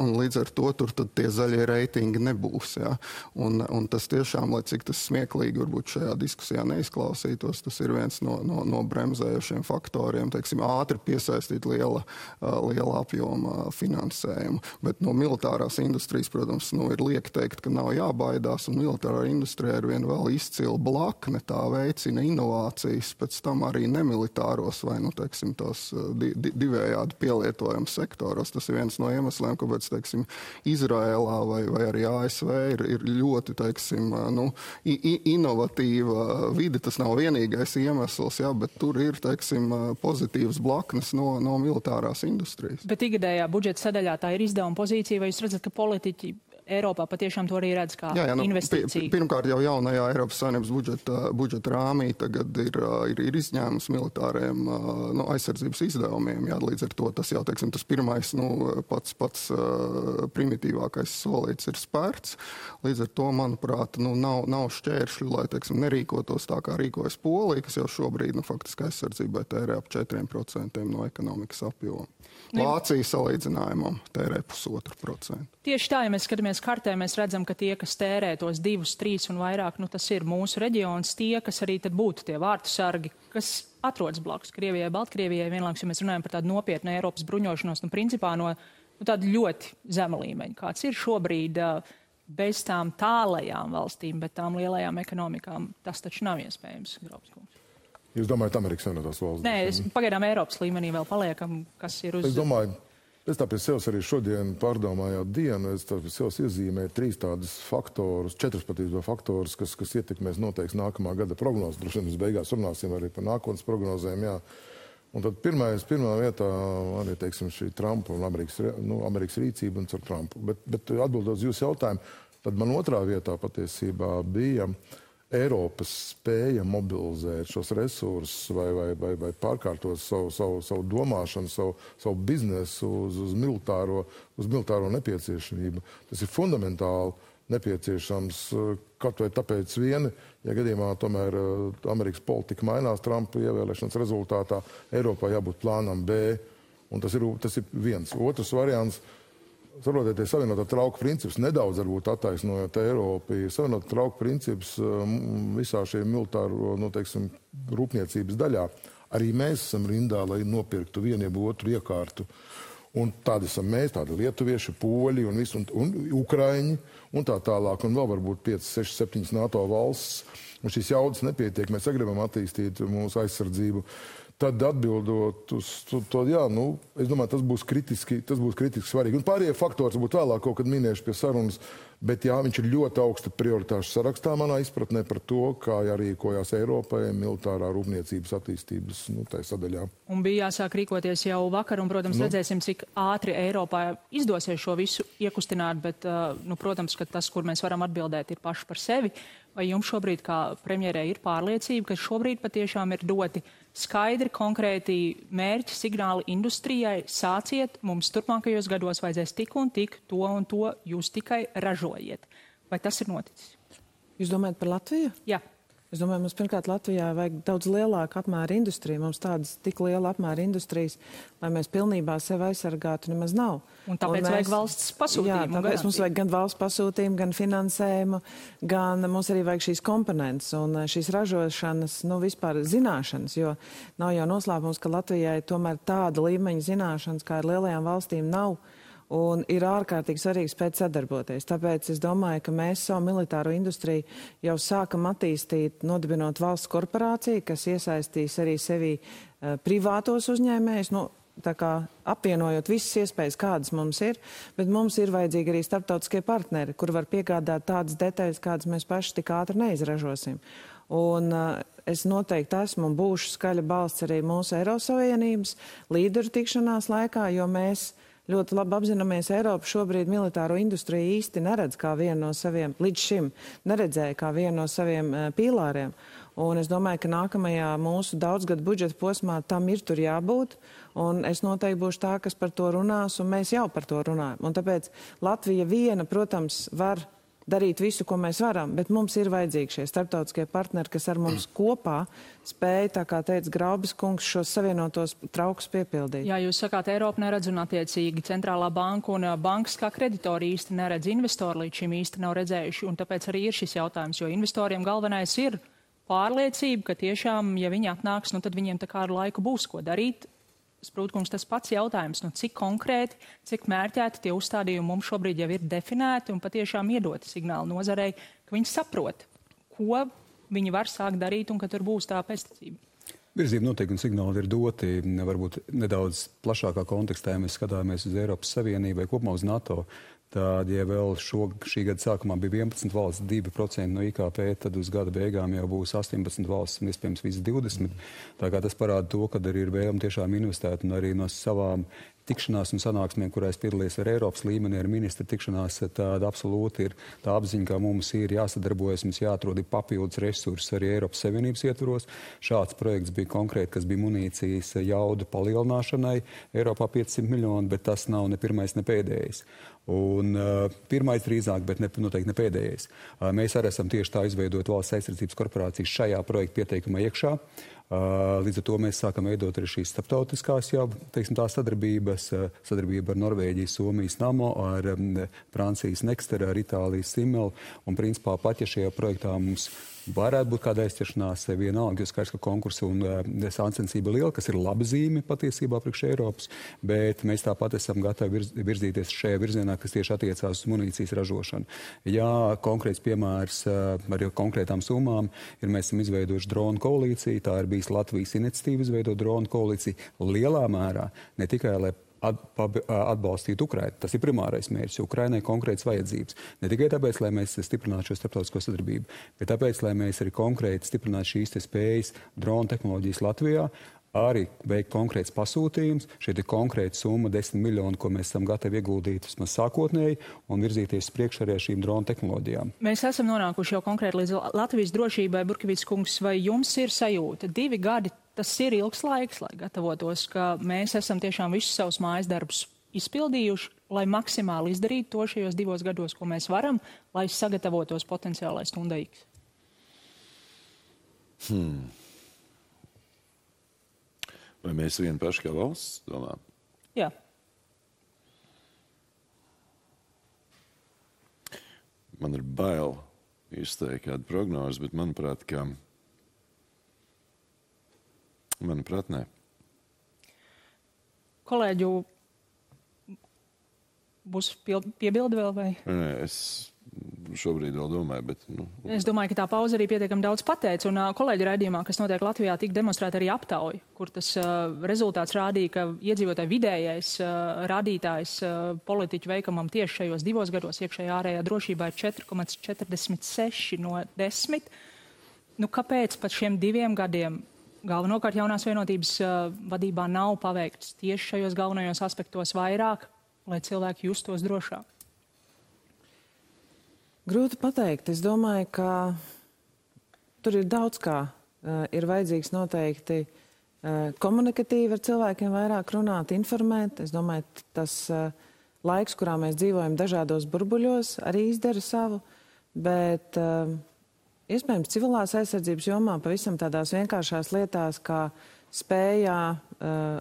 un līdz ar to tur tad tie zaļie reitingi nebūs. Ja? Un tas tiešām, lai cik tas smieklīgi varbūt šajā diskusijā neizklausītos, tas ir viens no bremzējošiem faktoriem, teiksim, ātri piesaistīt liela apjoma finansējumu. Bet no militārās industrijas, protams, ir lieki teikt, ka nav jābaidās, un militārā industrijā ir vien vēl izcila blakne, tā veicina inovācijas, pēc tam arī nemilitāros vai, teiksim, tos divējādi pielietojams sektoros. Tas ir viens no iemesliem, kāpēc, teiksim, Izraēlā vai arī ASV ir ļoti, teiksim, inovatīva vide. Tas nav vienīgais iemesls, jā, bet tur ir, teiksim, pozitīvas blaknes no militārās industrijas. Bet ikgadējā budžeta sadaļā tā ir izdevuma pozīcija, vai jūs redzat, ka politiķi Eiropā patiešām to arī redz kā investīciju? Pirmkārt, jau jaunajā Eiropas Savienības budžeta rāmī tagad ir izņēmums militāriem aizsardzības izdevumiem. Jā, līdz ar to tas jau, teiksim, tas pirmais, pats primitīvākais solīts ir spērts. Līdz ar to, manuprāt, nav šķēršļu, lai, teiksim, nerīkotos tā, kā rīkojas Polija, kas jau šobrīd, faktiski aizsardzībai tērē ap 4% no ekonomikas apjoma. Vācija salīdzinājumam tērē 1,5%. Tieši tā, ja mēs skatāmies kartē, mēs redzam, ka tie, kas tērē tos 2, 3 un vairāk, tas ir mūsu reģions, tie, kas arī tad būtu tie vārtu sargi, kas atrodas blakus Krievijai, Baltkrievijai, vienlaikus, ja mēs runājam par tādu nopietnu Eiropas bruņošanos, principā no tādu ļoti zema līmeņa, kāds ir šobrīd bez tām tālajām valstīm, bet tām lielajām ekonomikām, tas taču nav iespējams, Graups kungs. Jūs domājat, Amerikas Savienotās valstis? Nē, pagaidām Eiropas līmenī vēl paliekam, kas ir uz... Es domāju, es tā pie sevis arī šodien pārdomājot dienu, es tā pie sevis iezīmēju 3 tādus faktorus, 4 patiesībā faktorus, kas ietekmēs noteikti nākamā gada prognozes. Droši vien mēs beigās runāsim arī par nākotnes prognozēm, jā. Un tad pirmā vietā arī, teiksim, šī Trumpa un Amerikas rīcība un caur Trumpu. Bet atbildot uz jūsu jautājumu, tad man otrā vietā patiesībā bija Eiropas spēja mobilizēt šos resursus vai pārkārtot savu domāšanu, savu biznesu uz militāro nepieciešamību. Tas ir fundamentāli nepieciešams, kaut vai tāpēc vieni, ja gadījumā tomēr Amerikas politika mainās Trumpa ievēlēšanas rezultātā, Eiropā jābūt plānam B, un tas ir viens. Otrs variants, saprotiet, savienotā trauka princips nedaudz varbūt attaisnojot Eiropu. Savienotā trauka princips visā šī militāro, teiksim, rūpniecības daļā. Arī mēs esam rindā, lai nopirktu vienu jeb otru iekārtu. Un tādi esam mēs, tādi lietuvieši, poļi un ukraiņi un tā tālāk. Un vēl varbūt 5, 6, 7 NATO valsts. Un šīs jaudas nepietiek. Mēs gribam attīstīt mūsu aizsardzību. Tad atbildot uz to, jā, es domāju, tas būs kritiski svarīgi. Un pārējie faktori būtu vēlāk kaut kad minējuši pie sarunas, bet jā, viņš ir ļoti augsta prioritāšu sarakstā manā izpratnē par to, kā jārīkojās Eiropai militārā rūpniecības attīstības tajā sadaļā. Un bija jāsāk rīkoties jau vakar, un, protams, redzēsim, cik ātri Eiropā izdosies šo visu iekustināt, bet, protams, ka tas, kur mēs varam atbildēt, ir paši par sevi. Vai jums šobrīd, kā premjerē, ir pārliecība, ka šobrīd patiešām ir doti skaidri, konkrēti mērķi, signāli industrijai? Sāciet, mums turpmākajos gados vajadzēs tik un tik, to un to, jūs tikai ražojiet. Vai tas ir noticis? Jūs domājat par Latviju? Jā. Es domāju, mums pirmkārt Latvijā vajag daudz lielāku apmēru industriju. Mums tādas tik liela apmēra industrijas, lai mēs pilnībā sevi aizsargātu, nemaz nav. Un tāpēc vajag valsts pasūtījumu. Jā, tāpēc mums vajag gan valsts pasūtījumu, gan finansējumu, gan mums arī vajag šīs komponentes un šīs ražošanas, vispār zināšanas, jo nav jau noslēpums, ka Latvijai tomēr tāda līmeņa zināšanas, kā ar lielajām valstīm, nav. Un ir ārkārtīgi svarīgi spēt sadarboties. Tāpēc es domāju, ka mēs savu militāro industriju jau sākam attīstīt, nodibinot valsts korporāciju, kas iesaistīs arī sevī privātos uzņēmējus, tā kā apvienojot visas iespējas, kādas mums ir, bet mums ir vajadzīgi arī starptautiskie partneri, kur var piegādāt tādas detaļas, kādas mēs paši tik ātri neizražosim. Un es noteikti esmu un būšu skaļa balsts arī mūsu Eiropas Savienības līderu tikšanās laikā, jo mēs ļoti labi apzināmies, Eiropa šobrīd militāro industriju īsti neredz kā vienu no saviem, līdz šim neredzēja kā vienu no saviem pīlāriem. Un es domāju, ka nākamajā mūsu daudzgadu budžeta posmā tam ir tur jābūt. Un es noteikti būšu tā, kas par to runās, un mēs jau par to runājam. Un tāpēc Latvija viena, protams, var darīt visu, ko mēs varam, bet mums ir vajadzīgi šie starptautiskie partneri, kas ar mums kopā spēj, tā kā teica Graubis kungs, šos savienotos traukus piepildīt. Jā, jūs sakāt, Eiropa neredz un attiecīgi centrālā banka un bankas kā kreditori īsti neredz, investori līdz šim īsti nav redzējuši, un tāpēc arī ir šis jautājums, jo investoriem galvenais ir pārliecība, ka tiešām, ja viņi atnāks, tad viņiem tā kā ar laiku būs ko darīt. Sprūtkungs, tas pats jautājums, cik konkrēti, cik mērķēti tie uzstādījumi mums šobrīd jau ir definēti un patiešām iedoti signāli nozarei, ka viņi saprot, ko viņi var sākt darīt un ka tur būs tā pēctecība. Virzība noteikti un signāli ir doti. Varbūt nedaudz plašākā kontekstā, ja mēs skatāmies uz Eiropas Savienību vai kopumā uz NATO, tad, ja vēl šī gada sākumā bija 11 valsts, 2% no IKP, tad uz gada beigām jau būs 18 valsts un iespējams visas 20. Tā kā tas parāda to, ka arī ir vēlme tiešām investēt un arī no savām tikšanās un sanāksmēm, kurās piedalījies ar Eiropas līmeni, ar ministra tikšanās, tāda absolūti ir tā apziņa, ka mums ir jāsadarbojas, mums jāatrod papildus resursus arī Eiropas Savienības ietvaros. Šāds projekts bija konkrēti, kas bija munīcijas jaudu palielināšanai Eiropā 500 miljoni, bet tas nav ne pirmais, ne pēdējais. Un pirmais drīzāk, bet noteikti ne pēdējais. Mēs arī esam tieši tā izveidot valsts aizsardzības korporācijas šajā projekta pieteikumā iekšā. Līdz ar to mēs sākam veidot arī šīs starptautiskās jau, teiksim, tā sadarbība ar Norvēģijas, Somijas Namo, ar Francijas Nexter, ar Itālijas Simmel. Un principā pat, ja šajā projektā mums varētu būt kāda aizķeršanās, vienalga, jo skaidrs, ka konkursa un sāncensība liela, kas ir laba zīme patiesībā priekš Eiropas, bet mēs tāpat esam gatavi virzīties šajā virzienā, kas tieši attiecās uz munīcijas ražošanu. Jā, konkrēts piemērs ar konkrētām summām ir, mēs esam izveidojuši dronu koalīciju, tā ir bijis Latvijas iniciatīva izveidot dronu koalīciju lielā mērā, ne tikai, lai atbalstīt Ukrainu. Tas ir primārais mērķis, jo Ukrainai konkrētas vajadzības. Ne tikai tāpēc, lai mēs stiprinātu šo starptautisko sadarbību, bet tāpēc, lai mēs arī konkrēti stiprinātu šīs spējas drona tehnoloģijas Latvijā, arī veikt konkrēts pasūtījums. Šeit ir konkrēta summa 10 miljoni, ko mēs esam gatavi ieguldīt vismaz sākotnēji un virzīties priekš arī ar šīm drona tehnoloģijām. Mēs esam nonākuši jau konkrēti līdz Latvijas drošībai. Burkevits kungs, vai jums ir sajūta 2 gadi? Tas ir ilgs laiks, lai gatavotos, ka mēs esam tiešām visus savus mājas darbus izpildījuši, lai maksimāli izdarītu to šajos 2 gados, ko mēs varam, lai sagatavotos potenciālai stundai X. Vai mēs vien paši kā valsts domājam? Jā. Man ir bail izteikt kādu prognozi, bet manuprāt, nē. Kolēģu būs piebildi vēl vai? Nē, es šobrīd vēl domāju, bet... Es domāju, ka tā pauze arī pietiekami daudz pateica, un kolēģi raidījumā, kas notiek Latvijā, tika demonstrēta arī aptauja, kur tas rezultāts rādīja, ka iedzīvotāji vidējais rādītājs politiķu veikamam tieši šajos 2 gados iekšējā ārējā drošībā ir 4,46 no 10. Kāpēc pat šiem 2 gadiem galvenokārt jaunās vienotības vadībā nav paveikts tieši šajos galvenajos aspektos vairāk, lai cilvēki justos drošāk? Grūti pateikt. Es domāju, ka tur ir daudz kā. Ir vajadzīgs noteikti komunikatīvi ar cilvēkiem vairāk runāt, informēt. Es domāju, tas laiks, kurā mēs dzīvojam dažādos burbuļos, arī izdara savu. Bet iespējams civilās aizsardzības jomā pavisam tādās vienkāršās lietās, kā spējā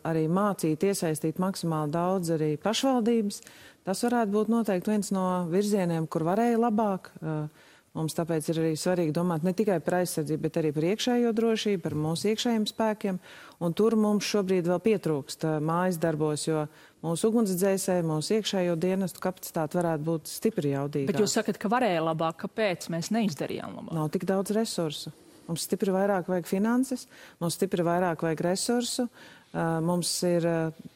arī mācīt, iesaistīt maksimāli daudz arī pašvaldības. Tas varētu būt noteikti viens no virzieniem, kur varēja labāk. Mums tāpēc ir arī svarīgi domāt ne tikai par aizsardzību, bet arī par iekšējo drošību, par mūsu iekšējiem spēkiem. Un tur mums šobrīd vēl pietrūkst mājas darbos, jo mūsu ugunsdzēsēji, mūsu iekšējo dienestu kapacitāte varētu būt stipri jaudīgāka. Bet jūs sakat, ka varēja labāk. Kāpēc mēs neizdarījām labāk? Nav tik daudz resursu. Mums stipri vairāk vajag finanses, mums stipri vairāk vajag resursu. Mums ir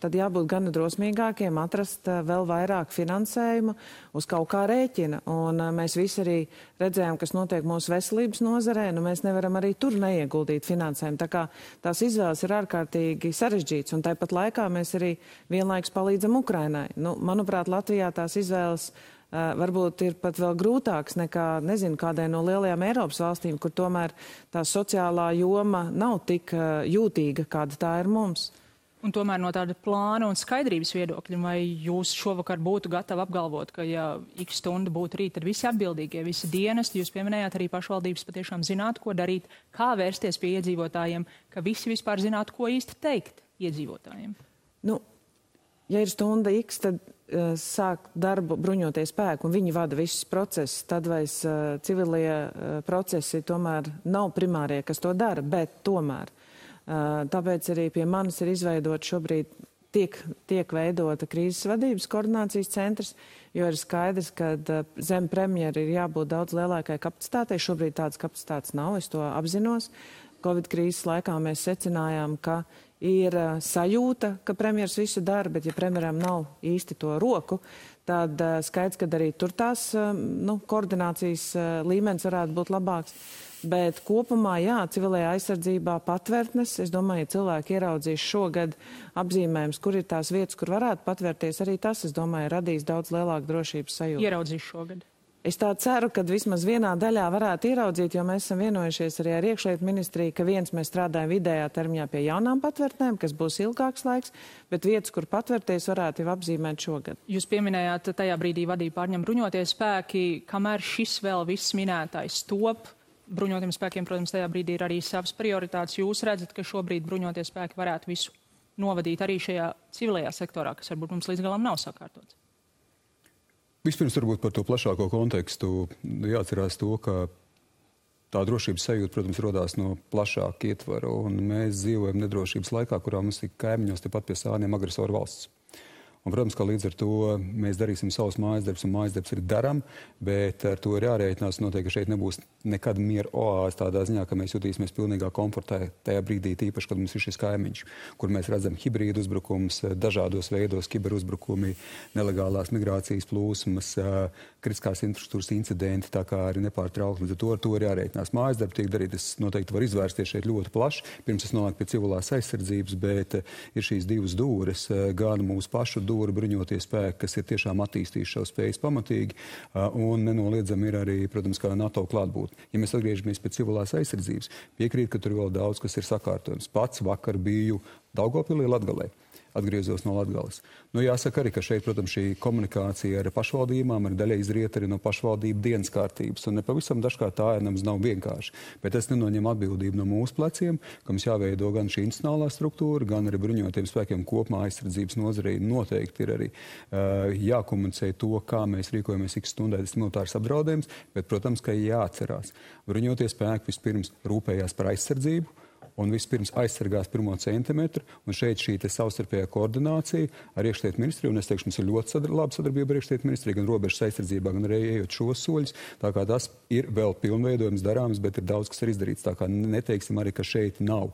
tad jābūt gan drosmīgākiem, atrast vēl vairāk finansējumu uz kaut kā rēķina. Un mēs visi arī redzējām, kas notiek mūsu veselības nozarē, mēs nevaram arī tur neieguldīt finansējumu. Tā kā tās izvēles ir ārkārtīgi sarežģītas, un tāpat laikā mēs arī vienlaikus palīdzam Ukrainai. Manuprāt, Latvijā tās izvēles varbūt ir pat vēl grūtāks nekā, kādai no lielajām Eiropas valstīm, kur tomēr tā sociālā joma nav tik jūtīga, kāda tā ir mums. Un tomēr no tāda plāna un skaidrības viedokļa, vai jūs šovakar būtu gatavi apgalvot, ka ja x stunda būtu rīt, tad visi atbildīgie, visi dienesti, jūs pieminējāt arī pašvaldības patiešām zinātu, ko darīt, kā vērsties pie iedzīvotājiem, ka visi vispār zinātu, ko īsti teikt iedzīvotājiem? Ja ir stunda x, tad sāk darbu bruņotie spēki un viņi vada visus procesus, tad vairs civilie procesi tomēr nav primārie, kas to dara, bet tomēr. Tāpēc arī pie manis ir izveidot šobrīd tiek veidota krīzes vadības koordinācijas centrs, jo ir skaidrs, ka zem premjera ir jābūt daudz lielākai kapacitātei. Šobrīd tādas kapacitātes nav, es to apzinos. Covid krīzes laikā mēs secinājām, ka ir sajūta, ka premjers visu dara, bet ja premjeram nav īsti to roku, tad skaidrs, ka arī tur tās koordinācijas līmenis varētu būt labāks. Bet kopumā, civilajā aizsardzībā patvērtnes, es domāju, ja cilvēki ieraudzīs šogad apzīmējums, kur ir tās vietas, kur varētu patvērties, arī tas, es domāju, radīs daudz lielāku drošības sajūtu. Ieraudzīs šogad? Es tā ceru, ka vismaz vienā daļā varētu ieraudzīt, jo mēs esam vienojušies arī ar iekšlietu ministriju, ka mēs strādājam vidējā termiņā pie jaunām patvērtnēm, kas būs ilgāks laiks, bet vietas, kur patvērties, varētu jau apzīmēt šogad. Jūs pieminējāt, tajā brīdī vadību pārņem bruņotie spēki, kamēr šis vēl viss minētais top. Bruņotiem spēkiem, protams, tajā brīdī ir arī savas prioritātes. Jūs redzat, ka šobrīd bruņotie spēki varētu visu novadīt arī šajā civilajā sektorā, kas varbūt mums līdz galam nav sakārtots? Vispirms varbūt par to plašāko kontekstu jāatcerās to, ka tā drošības sajūta, protams, rodās no plašāka ietvara, un mēs dzīvojam nedrošības laikā, kurā mums ir kaimiņos tepat pie sāniem agresoru valsts. Un, protams, ka līdz ar to mēs darīsim savus mājas darbus, un mājas darbs ir daram, bet ar to ir jārēķinās noteikti, ka šeit nebūs nekad miera oāze tādā ziņā, ka mēs jutīsimies pilnīgā komfortā tajā brīdī, tīpaši, kad mums ir šis kaimiņš, kur mēs redzam hibrīdu uzbrukums, dažādos veidos, kiberuzbrukumi, nelegālās migrācijas plūsmas, kritiskās infrastruktūras incidenti, tā kā arī nepārtraukti. Līdz ar to ir jārēķinās. Mājas darbi tiek darīt, tas noteikti var izvērsties šeit ļoti plaši, pirms es nonāku pie civilās aizsardzības, bet ir šīs divas dūres, gan mūsu pašu dūri bruņotie spēki, kas ir tiešām attīstījuši savu spējas pamatīgi, un nenoliedzami ir arī, protams, kā NATO klātbūt. Ja mēs atgriežamies pie civilās aizsardzības, piekrīt, ka tur vēl daudz, kas ir sakārtojums. Pats vakar biju Daugavpilī, Latgalē. Atgriezos no Latgales. Jāsaka arī, ka šeit, protams, šī komunikācija ar pašvaldībām ir daļai izriet arī no pašvaldību dienas kārtības. Un nepavisam dažkārt tā nemaz nav vienkārši. Bet tas nenoņem atbildību no mūsu pleciem, ka mums jāveido gan šī institucionālā struktūra, gan arī bruņotiem spēkiem kopumā aizsardzības nozarei noteikti ir arī jākomunicē to, kā mēs rīkojamies ik stundē. Tas ir militārs apdraudējums, bet, protams, ka jāatcerās. Bruņotie spēki vispirms rūpējās par aizsardzību, un vispirms aizsargās pirmo centimetru, un šeit šī savstarpējā koordinācija ar iekšlietu ministriju, un es teikšu, mums ir ļoti laba sadarbība ar iekšlietu ministriju, gan robežas aizsardzībā, gan arī ejot šos soļus, tā kā tas ir vēl pilnveidojums darāms, bet ir daudz, kas ir izdarīts, tā kā neteiksim arī, ka šeit nav,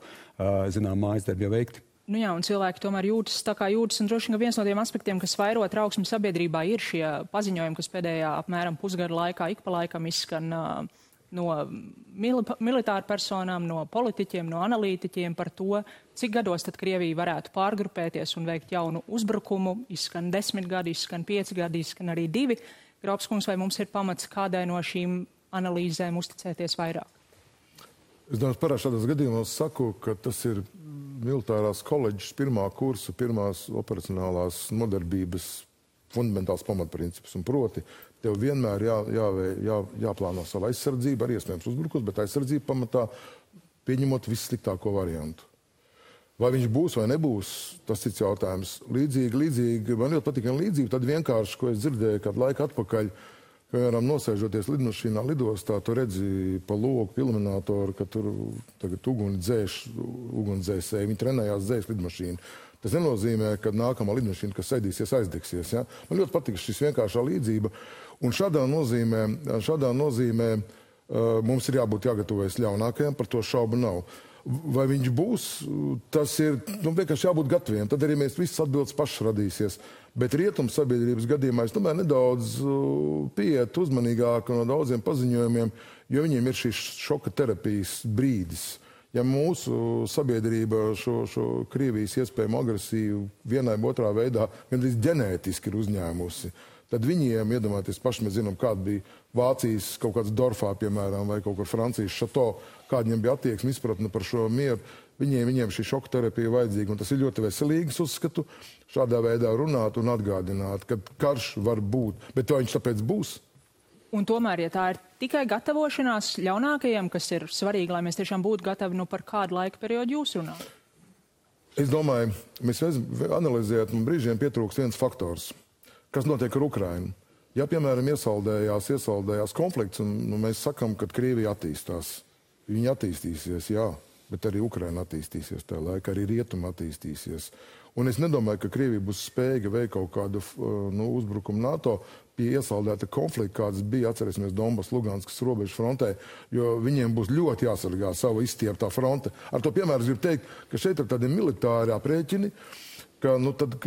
zinām, mājas darbi jau veikti. Nu jā, un cilvēki tomēr jūtas tā kā jūtas, un droši vien, ka viens no tiem aspektiem, kas vairo trauksmi sabiedrībā, ir šie paziņojumi, kas pēdējā apmēram pusgada laikā ik pa laikam izskan no militāru personām, no politiķiem, no analītiķiem par to, cik gados tad Krievija varētu pārgrupēties un veikt jaunu uzbrukumu. Izskan 10 gadi, izskan 5 gadi, izskan arī 2. Grobskungs, vai mums ir pamats kādai no šīm analīzēm uzticēties vairāk? Es domāju, parasti šādos gadījumos saku, ka tas ir militārās koledžas pirmā kursa, pirmās operacionālās nodarbības fundamentāls pamatprincips. Un proti, tev vienmēr jāplāno savu aizsardzību, arī iespējams uzbrukums, bet aizsardzība pamatā pieņemot vissliktāko variantu. Vai viņš būs vai nebūs, tas cits jautājums. Līdzīgi, man ļoti patīk līdzība, tad vienkārši, ko es dzirdēju kādu laiku atpakaļ, ka vienam nosēžoties lidmašīnā lidostā, tu redzi pa loku iluminatoru, ka tur tagad ugunsdzēsēji, viņi trenējās dzēst lidmašīnu. Tas nenozīmē, ka nākamā lidmašīna, kas sēdīsies, aizdegsies. Ja? Man ļoti patīk šis vienkāršā līdzība. Un šādā nozīmē mums ir jāgatavojas ļaunākajam, par to šaubu nav. Vai viņš būs, tas ir vienkārši jābūt gataviem. Tad arī mēs visas atbildes pašas radīsies. Bet rietumu sabiedrības gadījumā es tomēr nedaudz pieiet uzmanīgāk no daudziem paziņojumiem, jo viņiem ir šīs šoka terapijas brīdis. Ja mūsu sabiedrība šo Krievijas iespējamu agresiju vienā vai otrā veidā gandrīz ģenētiski ir uzņēmusi, tad viņiem, iedomājieties, paši mēs zinām, kāda bija Vācijas kaut kāds Dorfā, piemēram, vai kaut kur Francijas Šato, kāda viņiem bija attieksme izpratne par šo mieru, viņiem šī šoka terapija vajadzīga, un tas ir ļoti veselīgs uzskatu, šādā veidā runāt un atgādināt, ka karš var būt, bet vai viņš tāpēc būs? Un tomēr, ja tā ir tikai gatavošanās ļaunākajiem, kas ir svarīgi, lai mēs tiešām būtu gatavi, par kādu laika periodu jūs runājat? Es domāju, mēs analizējot, un brīžiem pietrūks viens faktors, kas notiek ar Ukrainu. Ja, piemēram, iesaldējās konflikts, un mēs sakam, ka Krievija attīstās. Viņi attīstīsies, jā, bet arī Ukraina attīstīsies tajā laikā, arī rietumi attīstīsies. Un es nedomāju, ka Krievija būs spējīga veikt kaut kādu uzbrukumu NATO pie iesaldēta konflikta, kāds bija, atcerēsimies, Donbas, Luganskas robežas frontē, jo viņiem būs ļoti jāsargā savu izstieptā fronte. Ar to piemēru es gribu teikt, ka šeit ir tādi militāri aprēķini, ka tad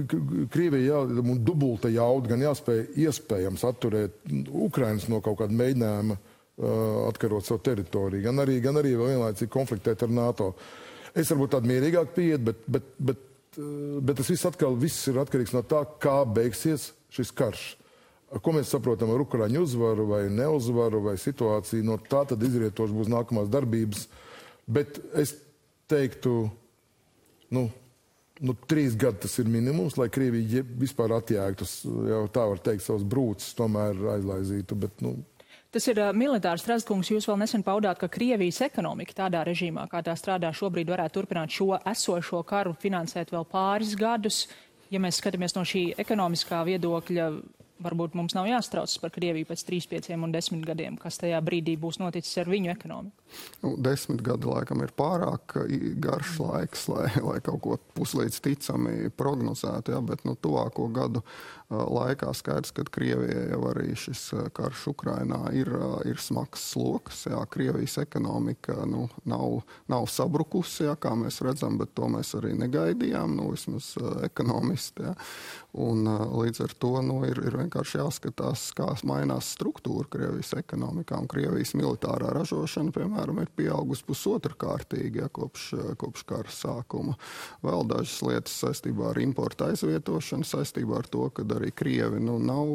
Krievija dubulta jauda gan jāspēj iespējams atturēt Ukrainas no kaut kāda mēģinājuma atkarot savu teritoriju, gan arī vēl vienlaicīgi konfliktēt ar NATO. Es varbūt tādu mierīgāk pieiet, bet tas viss ir atkarīgs no tā, kā beigsies šis karš. Ko mēs saprotam ar Ukraiņu uzvaru vai neuzvaru vai situāciju, no tā tad izrietoši būs nākamās darbības. Bet es teiktu, 3 gadi tas ir minimums, lai Krievija vispār atjēgtu, jau tā var teikt, savus brūces tomēr aizlaizītu, bet, Tas ir militārs Straskungs. Jūs vēl nesen paudāt, ka Krievijas ekonomika tādā režīmā, kā tā strādā šobrīd, varētu turpināt šo esošo karu finansēt vēl pāris gadus. Ja mēs skatāmies no šī ekonomiskā viedokļa, varbūt mums nav jāstrauc par Krieviju pēc 3, 5 un 10 gadiem, kas tajā brīdī būs noticis ar viņu ekonomiku. 10 gadi laikam ir pārāk garš laiks, lai kaut ko puslīdz ticami prognozētu, ja, bet tuvāko gadu laikā skaidrs, ka Krievijai jau arī šis karš Ukrainā ir smags sloks. Jā, Krievijas ekonomika nav sabrukusi, jā, kā mēs redzam, bet to mēs arī negaidījām, vismaz ekonomisti. Jā. Un līdz ar to ir vienkārši jāskatās, kā mainās struktūra Krievijas ekonomikā. Un Krievijas militārā ražošana, piemēram, ir pieaugusi pusotrkārtīgi, ja, kopš kara sākuma. Vēl dažas lietas saistībā ar importa aizvietošanu, saistībā ar to, ka arī Krievi nav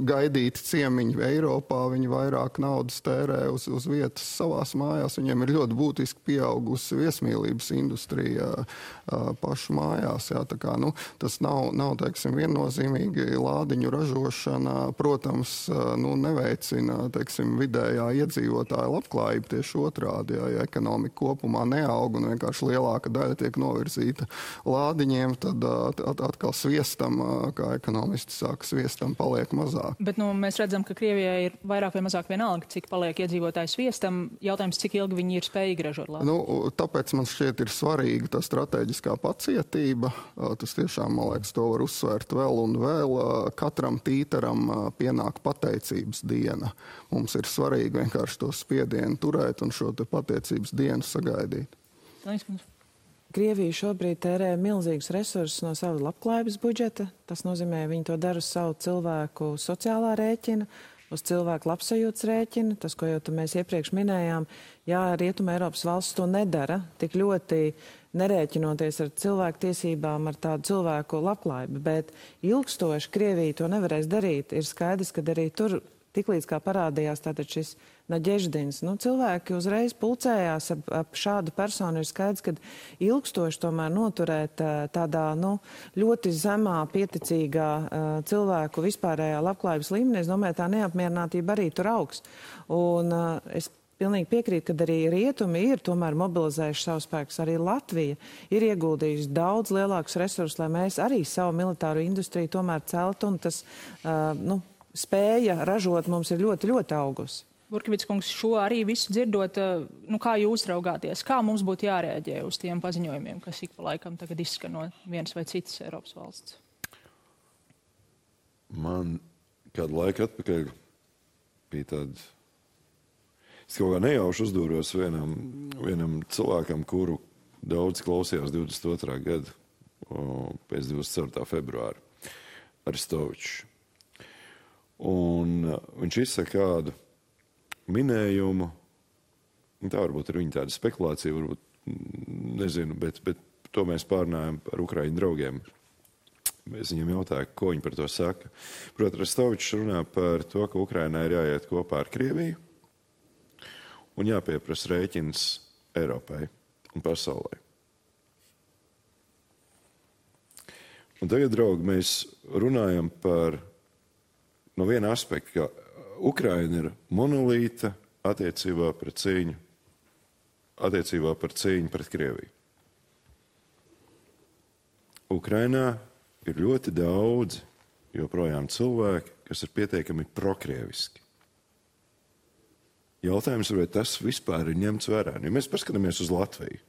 gaidīti ciemiņi Eiropā, viņi vairāk naudas tērē uz vietas savās mājās. Viņiem ir ļoti būtiski pieaugusi viesmīlības industrija pašu mājās. Jā, tā kā, tas nav teiksim, viennozīmīgi lādiņu ražošana, protams, neveicina, teiksim, vidējā iedzīvotāja labklājību. tieši otrādi. Ja ekonomika kopumā neaug un vienkārši lielāka daļa tiek novirzīta lādiņiem, tad atkal sviestam, kā ekonomisti saka, sviestam paliek mazāk. Bet mēs redzam, ka Krievijai ir vairāk vai mazāk vienalga, cik paliek iedzīvotāju sviestam. Jautājums, cik ilgi viņi ir spējīgi ražot lādiņus? Tāpēc man šķiet ir svarīga tā strateģiskā pacietība. Tas tiešām, man liekas, to var uzsvērt vēl un vēl. Katram tītaram pienāk pateicības diena. Mums ir svarīgi vienkārši to spiedienu turēt un šo te pateicības dienu sagaidīt. Krievija šobrīd tērē milzīgus resursus no savas labklājības budžeta. Tas nozīmē, viņi to dara uz savu cilvēku sociālā rēķina, uz cilvēku labsajūtas rēķina. Tas, ko jau mēs iepriekš minējām, Rietuma Eiropas valsts to nedara tik ļoti nerēķinoties ar cilvēku tiesībām, ar tādu cilvēku labklājību, bet ilgstoši Krievija to nevarēs darīt. Ir skaidrs, ka arī tur tiklīdz kā parādījās tātad šis Naģeždins. Cilvēki uzreiz pulcējās ap šādu personu. Ir skaidrs, ka ilgstoši tomēr noturēt tādā ļoti zemā, pieticīgā cilvēku vispārējā labklājības līmenī, es domāju, tā neapmierinātība arī tur augs. Un es pilnīgi piekrītu, ka arī rietumi ir tomēr mobilizējuši savu spēkus. Arī Latvija ir ieguldījusi daudz lielākus resursus, lai mēs arī savu militāru industriju tomēr celtu, un tas spēja ražot mums ir ļoti, ļoti augusi. Burkevits kungs, šo arī visu dzirdot, kā jūs raugāties? Kā mums būtu jārēģē uz tiem paziņojumiem, kas ik pa laikam tagad izskan no vienas vai citas Eiropas valsts? Man kādu laiku atpakaļ bija tāda... Es kaut kā nejauši uzdūros vienam cilvēkam, kuru daudz klausījās 22. gada pēc 24. februāra, Aristovičs. Un viņš izsaka kādu minējumu, tā varbūt ir viņa tāda spekulācija, varbūt, nezinu, bet to mēs pārnājam ar Ukraiņu draugiem. Es viņam jautāju, ko viņi par to saka. Protams, Aristovičs runā par to, ka Ukrainā ir jāiet kopā ar Krieviju un jāpieprasa rēķins Eiropai un pasaulē. Un tagad, draugi, mēs runājam par no viena aspekta, ka Ukraina ir monolīta attiecībā par cīņu pret Krieviju. Ukrainā ir ļoti daudz joprojām cilvēki, kas ir pietiekami prokrieviski. Jautājums, vai tas vispār ir ņemts vērā. Ja mēs paskatāmies uz Latviju,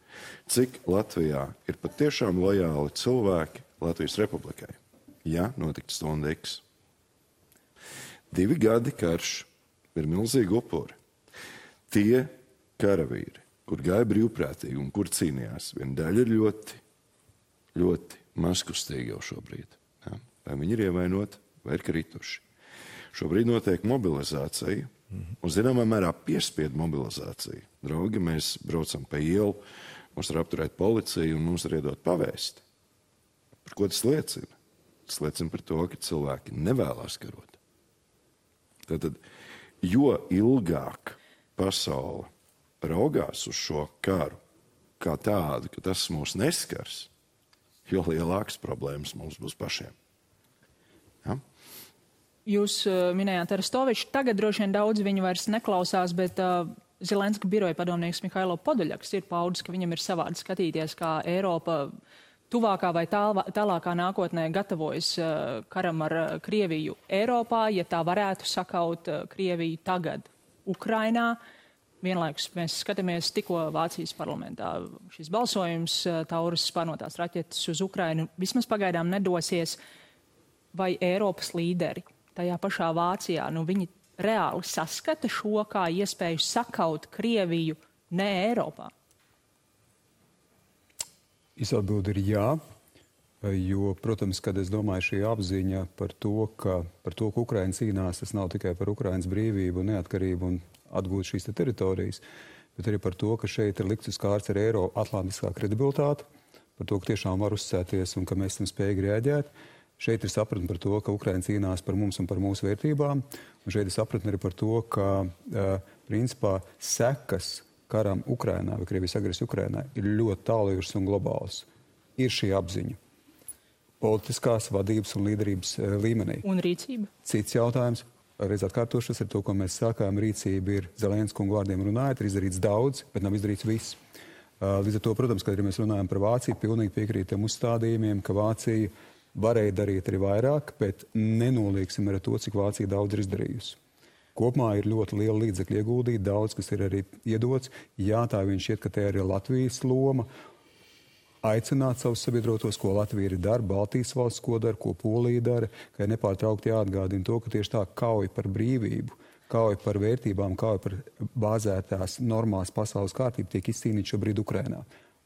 cik Latvijā ir patiešām lojāli cilvēki Latvijas Republikai, ja notiktu stunda X. 2 gadi karš ir milzīgi upuri. Tie karavīri, kur gāja brīvprātīgi un kur cīnījās, viena daļa ir ļoti, ļoti mazkustīgi jau šobrīd. Ja? Vai viņi ir ievainoti, vai ir krituši. Šobrīd notiek mobilizācija, un zināmā mērā piespiedu mobilizācija. Draugi, mēs braucam pa ielu, mums ir apturēt policiju un mums ir iedot pavēst. Par ko tas liecina? Tas liecina par to, ka cilvēki nevēlās karot. Tātad, jo ilgāk pasaule raugās uz šo karu kā tādu, ka tas mūs neskars, jo lielākas problēmas mums būs pašiem. Ja? Jūs minējāt Aristoviču, tagad droši vien daudz viņu vairs neklausās, bet Zelenska biroja padomnieks Mihailo Podoļaks ir paudis, ka viņam ir savādi skatīties, kā Eiropa tuvākā vai tālākā nākotnē gatavojas karam ar Krieviju Eiropā, ja tā varētu sakaut Krieviju tagad Ukrainā. Vienlaikus mēs skatāmies tikko Vācijas parlamentā. Šis balsojums, Taurus spārnotās raķetes uz Ukrainu, vismaz pagaidām nedosies. Vai Eiropas līderi tajā pašā Vācijā, viņi reāli saskata šo kā iespēju sakaut Krieviju ne Eiropā? Atbilde ir jā, jo, protams, kad es domāju šī apziņa par to, ka Ukraina cīnās, tas nav tikai par Ukrainas brīvību un neatkarību un atgūt šīs teritorijas, bet arī par to, ka šeit ir likts uz kārts ar Eiro-atlantiskā kredibilitāte, par to, ka tiešām var uzsēties un ka mēs esam spējīgi reaģēt. Šeit ir sapratne par to, ka Ukraina cīnās par mums un par mūsu vērtībām, un šeit ir sapratne arī par to, ka, principā, sekas karam Ukrainā vai Krievijas agresija Ukrainā ir ļoti tālējušas un globālas. Ir šī apziņa politiskās vadības un līderības līmenī. Un rīcība? Cits jautājums Reiz atkārtošos ar to, ko mēs sākām, rīcība ir Zelenska kungu vārdiem runājot, ir izdarīts daudz, bet nav izdarīts viss. Līdz ar to, protams, kad mēs runājam par Vāciju, pilnīgi piekrītam uzstādījumiem, ka Vācija varēja darīt arī vairāk, bet nenolieksim ar to, cik Vācija daudz ir izdarījusi. Kopumā ir ļoti liela līdzekļu ieguldīta, daudz, kas ir arī iedots. Jā, tā viņš šķiet, ka te ir Latvijas loma. Aicināt savus sabiedrotos, ko Latvija dara, Baltijas valsts, ko dara, ko Polija dara, ka ir nepārtraukti jāatgādina to, ka tieši tā kauja par brīvību, kauja par vērtībām, kauja par bāzētās normās pasaules kārtību tiek izcīnīta šobrīd Ukrainā.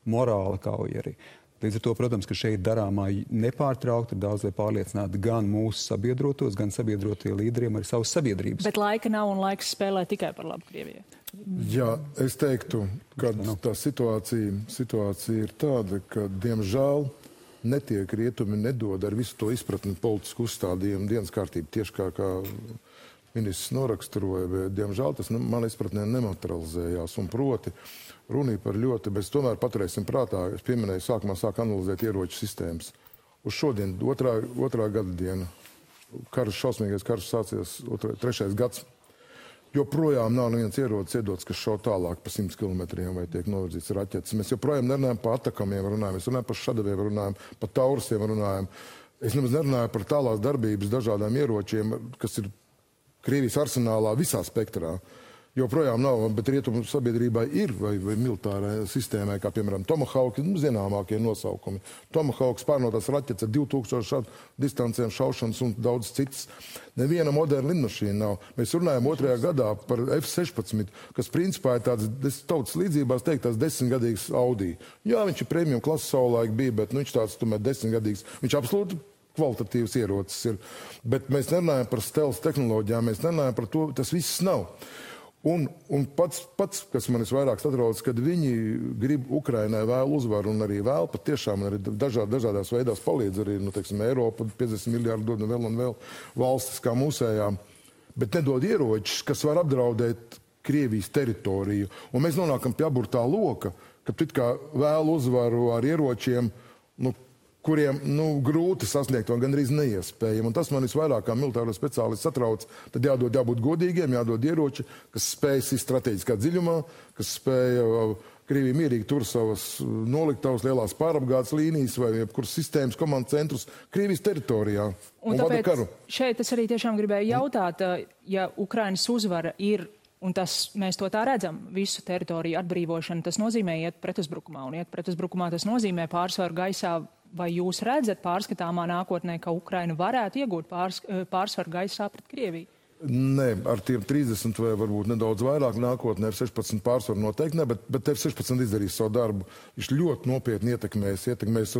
Morāla kauja arī. Līdz ar to, protams, ka šeit darāmā nepārtraukti ir daudz, lai pārliecinātu gan mūsu sabiedrotos, gan sabiedrotie līderiem arī savas sabiedrības. Bet laika nav un laiks spēlē tikai par labu Krievijai. Jā, es teiktu, ka tā situācija ir tāda, ka, diemžēl, netiek rietumi nedod ar visu to izpratni politisku uzstādījumu dienas kārtību, tieši kā ministrs noraksturoja, bet, diemžēl, tas man izpratnē nematerializējās. Un proti, runīja par ļoti, bet tomēr paturēsim prātā, es pieminēju, sākumā sāk analizēt ieroču sistēmas. Uz šodien, otrā gada diena, šausmīgais karš sācies, 3. gads. Joprojām nav neviens ierocis iedots, kas šauj tālāk pa 100 kilometriem vai tiek novirzīts raķetes. Mēs joprojām nerunājam par atakamiem, mēs runājam par šadaviem, runājam par taurusiem, runājam. Es nemaz nerunāju par tālās darbības dažādām ieročiem, kas ir Krievijas arsenālā visā spektrā. Joprojām nav, bet rietumu sabiedrībai ir vai militārai sistēmai, kā piemēram Tomahawk, zināmākie nosaukumi. Tomahawk spārnotās raķetes ar 2000 distanciem šaušanas un daudz citas. Neviena moderna lidmašīna nav. Mēs runājam 2. gadā par F-16, kas principā ir tāds tautas līdzībās teikt tās 10-gadīgs Audi. Jā, viņš ir premium klases savulaik bija, bet viņš tāds tomēr 10-gadīgs. Viņš absolūti kvalitatīvs ierocis ir. Bet mēs nerunājam par stealth tehnoloģijām, mēs nerunājam par to, tas viss nav. Un pats, kas man visvairāk satrauc, kad viņi grib Ukrainai vēl uzvaru un arī vēl patiešām arī dažādās veidās palīdz arī, Eiropa 50 miljārdu dod un vēl valstis kā mūsējām, bet nedod ieročus, kas var apdraudēt Krievijas teritoriju. Un mēs nonākam pie aburtā loka, ka it kā vēl uzvaru ar ieročiem, kuriem grūti sasniegt un gandrīz neiespējami. Un tas man visvairāk kā militāro speciālists satrauc. Tad jābūt godīgiem, jādod ieroči, kas spēj sist strateģiskā dziļumā, kas spēj Krievija mierīgi tur savas noliktavas lielās pārapgādes līnijas vai jebkuras sistēmas komandu centrus Krievijas teritorijā. Un tāpēc karu. Šeit es arī tiešām gribēju jautāt, ja Ukrainas uzvara ir, un mēs to tā redzam, visu teritoriju atbrīvošanu, tas nozīmē iet pretuzbrukumā, un iet pretuzbrukumā tas nozīmē pārsvaru gaisā. Vai jūs redzat pārskatāmā nākotnē, ka Ukraina varētu iegūt pārsvaru gaisā pret Krieviju? Nē, ar tiem 30 vai varbūt nedaudz vairāk nākotnē F-16 pārsvaru noteikti ne, bet F-16 izdarīs savu darbu. Viņš ļoti nopietni ietekmēs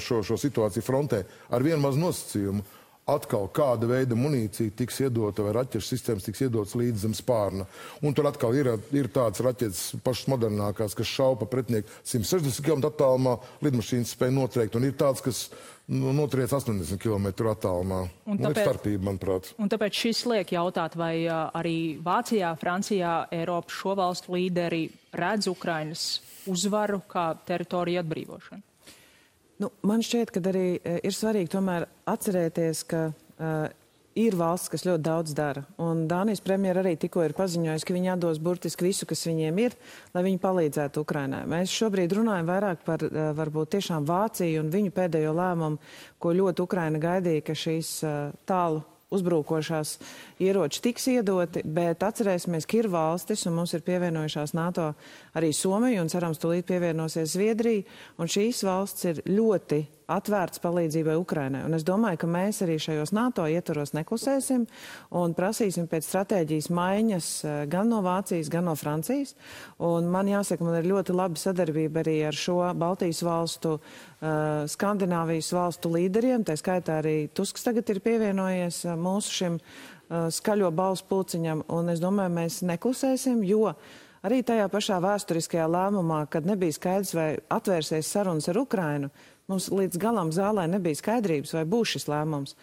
šo situāciju frontē ar vienu mazu nosacījumu. Atkal kāda veida munīcija tiks iedota vai raķešu sistēmas tiks iedotas līdz zem spārna. Un tur atkal ir tādas raķetes pašas modernākās, kas šauj pa pretinieku 160 km attālumā, lidmašīnas spēj notriekt, un ir tādas, kas notriec 80 km attālumā. Un ir starpība, manuprāt. Un tāpēc šis liek jautāt, vai arī Vācijā, Francijā, Eiropas šo valstu līderi redz Ukrainas uzvaru kā teritoriju atbrīvošanu? Man šķiet, ka arī ir svarīgi tomēr atcerēties, ka ir valsts, kas ļoti daudz dara. Un Dānijas premjera arī tikko ir paziņojusi, ka viņi atdos burtiski visu, kas viņiem ir, lai viņi palīdzētu Ukrainai. Mēs šobrīd runājam vairāk par varbūt tiešām Vāciju un viņu pēdējo lēmumu, ko ļoti Ukraina gaidīja, ka šīs tālu uzbrukošās ieroči tiks iedoti, bet atcerēsimies, ka ir valstis, un mums ir pievienojušās NATO arī Somija, un cerams, tūlīt pievienosies Zviedrija, un šīs valsts ir ļoti atvērts palīdzībai Ukrainai. Un es domāju, ka mēs arī šajos NATO ietvaros neklusēsim un prasīsim pēc stratēģijas maiņas gan no Vācijas, gan no Francijas. Un man jāsaka, man ir ļoti laba sadarbība arī ar šo Baltijas valstu, Skandināvijas valstu līderiem. Tā skaitā arī Tusks tagad ir pievienojies mūsu šim skaļo balsu pulciņam. Un es domāju, mēs neklusēsim, jo arī tajā pašā vēsturiskajā lēmumā, kad nebija skaidrs, vai atvērsies sarunas ar Ukrainu, Mums līdz galam zālē nebija skaidrības, vai būs šis lēmums.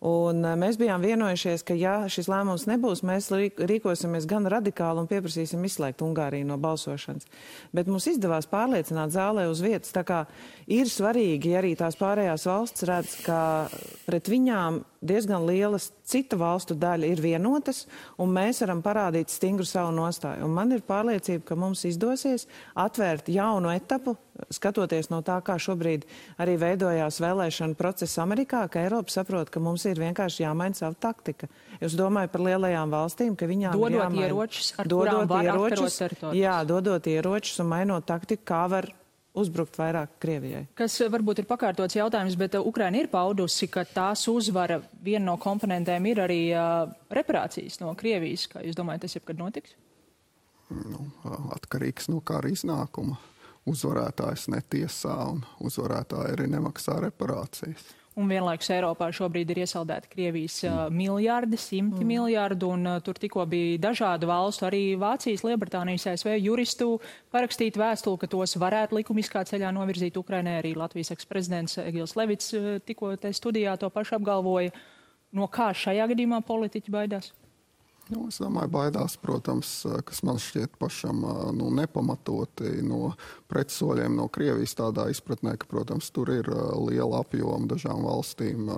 Un mēs bijām vienojušies, ka ja šis lēmums nebūs, mēs rīkosimies gan radikāli un pieprasīsim izslēgt Ungāriju no balsošanas. Bet mums izdevās pārliecināt zālē uz vietas, tā kā ir svarīgi, ja arī tās pārējās valsts redz, ka pret viņām diezgan lielas cita valstu daļa ir vienotas, un mēs varam parādīt stingru savu nostāju. Un man ir pārliecība, ka mums izdosies atvērt jaunu etapu, skatoties no tā, kā šobrīd arī veidojās vēlēšana process Amerikā, ka Eiropa saprot, ka mums ir vienkārši jāmaina savu taktika. Es domāju par lielajām valstīm, ka viņām dodot jāmaina. Ieročus, ar kurām var atkarot teritorijas. Jā, dodot ieročus un mainot taktiku, kā var uzbrukt vairāk Krievijai. Kas varbūt ir pakārtots jautājums, bet Ukraina ir paudusi, ka tās uzvara viena no komponentēm ir arī reparācijas no Krievijas. Kā jūs domājat, tas jebkad notiks? Atkarīgs no kara iznākuma. Uzvarētājs netiesā un uzvarētāji arī nemaksā reparācijas. Un vienlaikus Eiropā šobrīd ir iesaldēti Krievijas miljārdi, simti miljārdu, un tur tikko bija dažādu valstu, arī Vācijas, Lielbritānijas, ASV juristu parakstīt vēstuli, ka tos varētu likumiskā ceļā novirzīt Ukrainai. Arī Latvijas eksprezidents Egils Levits tikko te studijā to pašu apgalvoja. No kā šajā gadījumā politiķi baidās? Es domāju, baidās, protams, kas man šķiet pašam nepamatoti no pretsoļiem no Krievijas tādā izpratnē, ka, protams, tur ir liela apjoma dažām valstīm,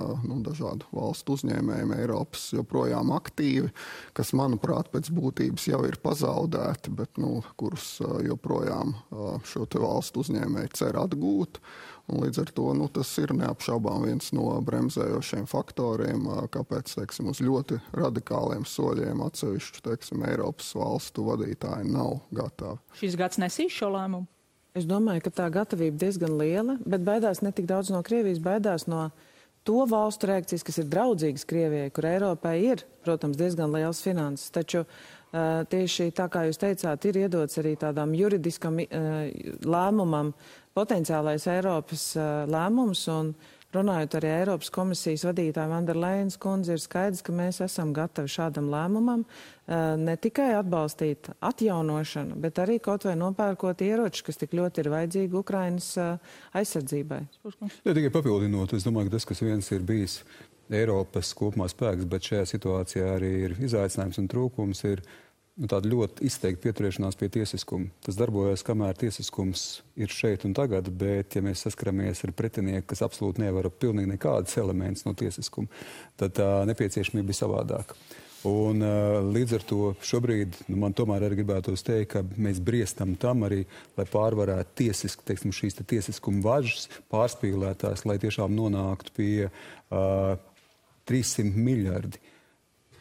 dažādu valstu uzņēmējiem Eiropas joprojām aktīvi, kas, manuprāt, pēc būtības jau ir pazaudēti, bet, kurus joprojām šo te valstu uzņēmēji cer atgūt. Un līdz ar to tas ir neapšaubām viens no bremzējošiem faktoriem, kāpēc, teiksim, uz ļoti radikāliem soļiem atsevišķu, teiksim, Eiropas valstu vadītāji nav gatavi. Šis gads nesīs šo lēmumu? Es domāju, ka tā gatavība diezgan liela, bet baidās ne tik daudz no Krievijas, baidās no to valstu reakcijas, kas ir draudzīgas Krievijai, kur Eiropai ir, protams, diezgan liels finanses. Taču tieši tā, kā jūs teicāt, ir iedots arī tādām juridiskam lēmumam potenciālais Eiropas lēmums, un runājot arī Eiropas komisijas vadītāju Van der Leyenas kundze, ir skaidrs, ka mēs esam gatavi šādam lēmumam ne tikai atbalstīt atjaunošanu, bet arī kaut vai nopērkot ieročus, kas tik ļoti ir vajadzīgi Ukrainas aizsardzībai. Ja tikai papildinot, es domāju, ka tas, kas viens ir bijis Eiropas kopumā spēks, bet šajā situācijā arī ir izaicinājums un trūkums, ir tāda ļoti izteikta pieturēšanās pie tiesiskuma. Tas darbojas, kamēr tiesiskums ir šeit un tagad, bet ja mēs saskaramies ar pretinieku, kas absolūti nevar pilnīgi nekādas elementus no tiesiskuma, tad tā nepieciešamība bija savādāka. Un līdz ar to šobrīd man tomēr arī gribētos teikt, ka mēs briestam tam arī, lai pārvarētu šīs tiesiskuma važas, pārspīlētās, lai tiešām nonāktu pie 300 miljardi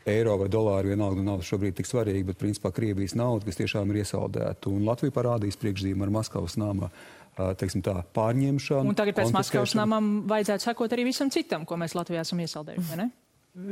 eiro vai dolāru, vienalga nauda šobrīd tik svarīga, bet principā Krievijas nauda, kas tiešām ir iesaldēta. Un Latvija parādīs priekšzīmu ar Maskavas nama, pārņemšanu. Un tagad pēc Maskavas namam vajadzētu sekot arī visam citam, ko mēs Latvijā esam iesaldējuši, vai ne?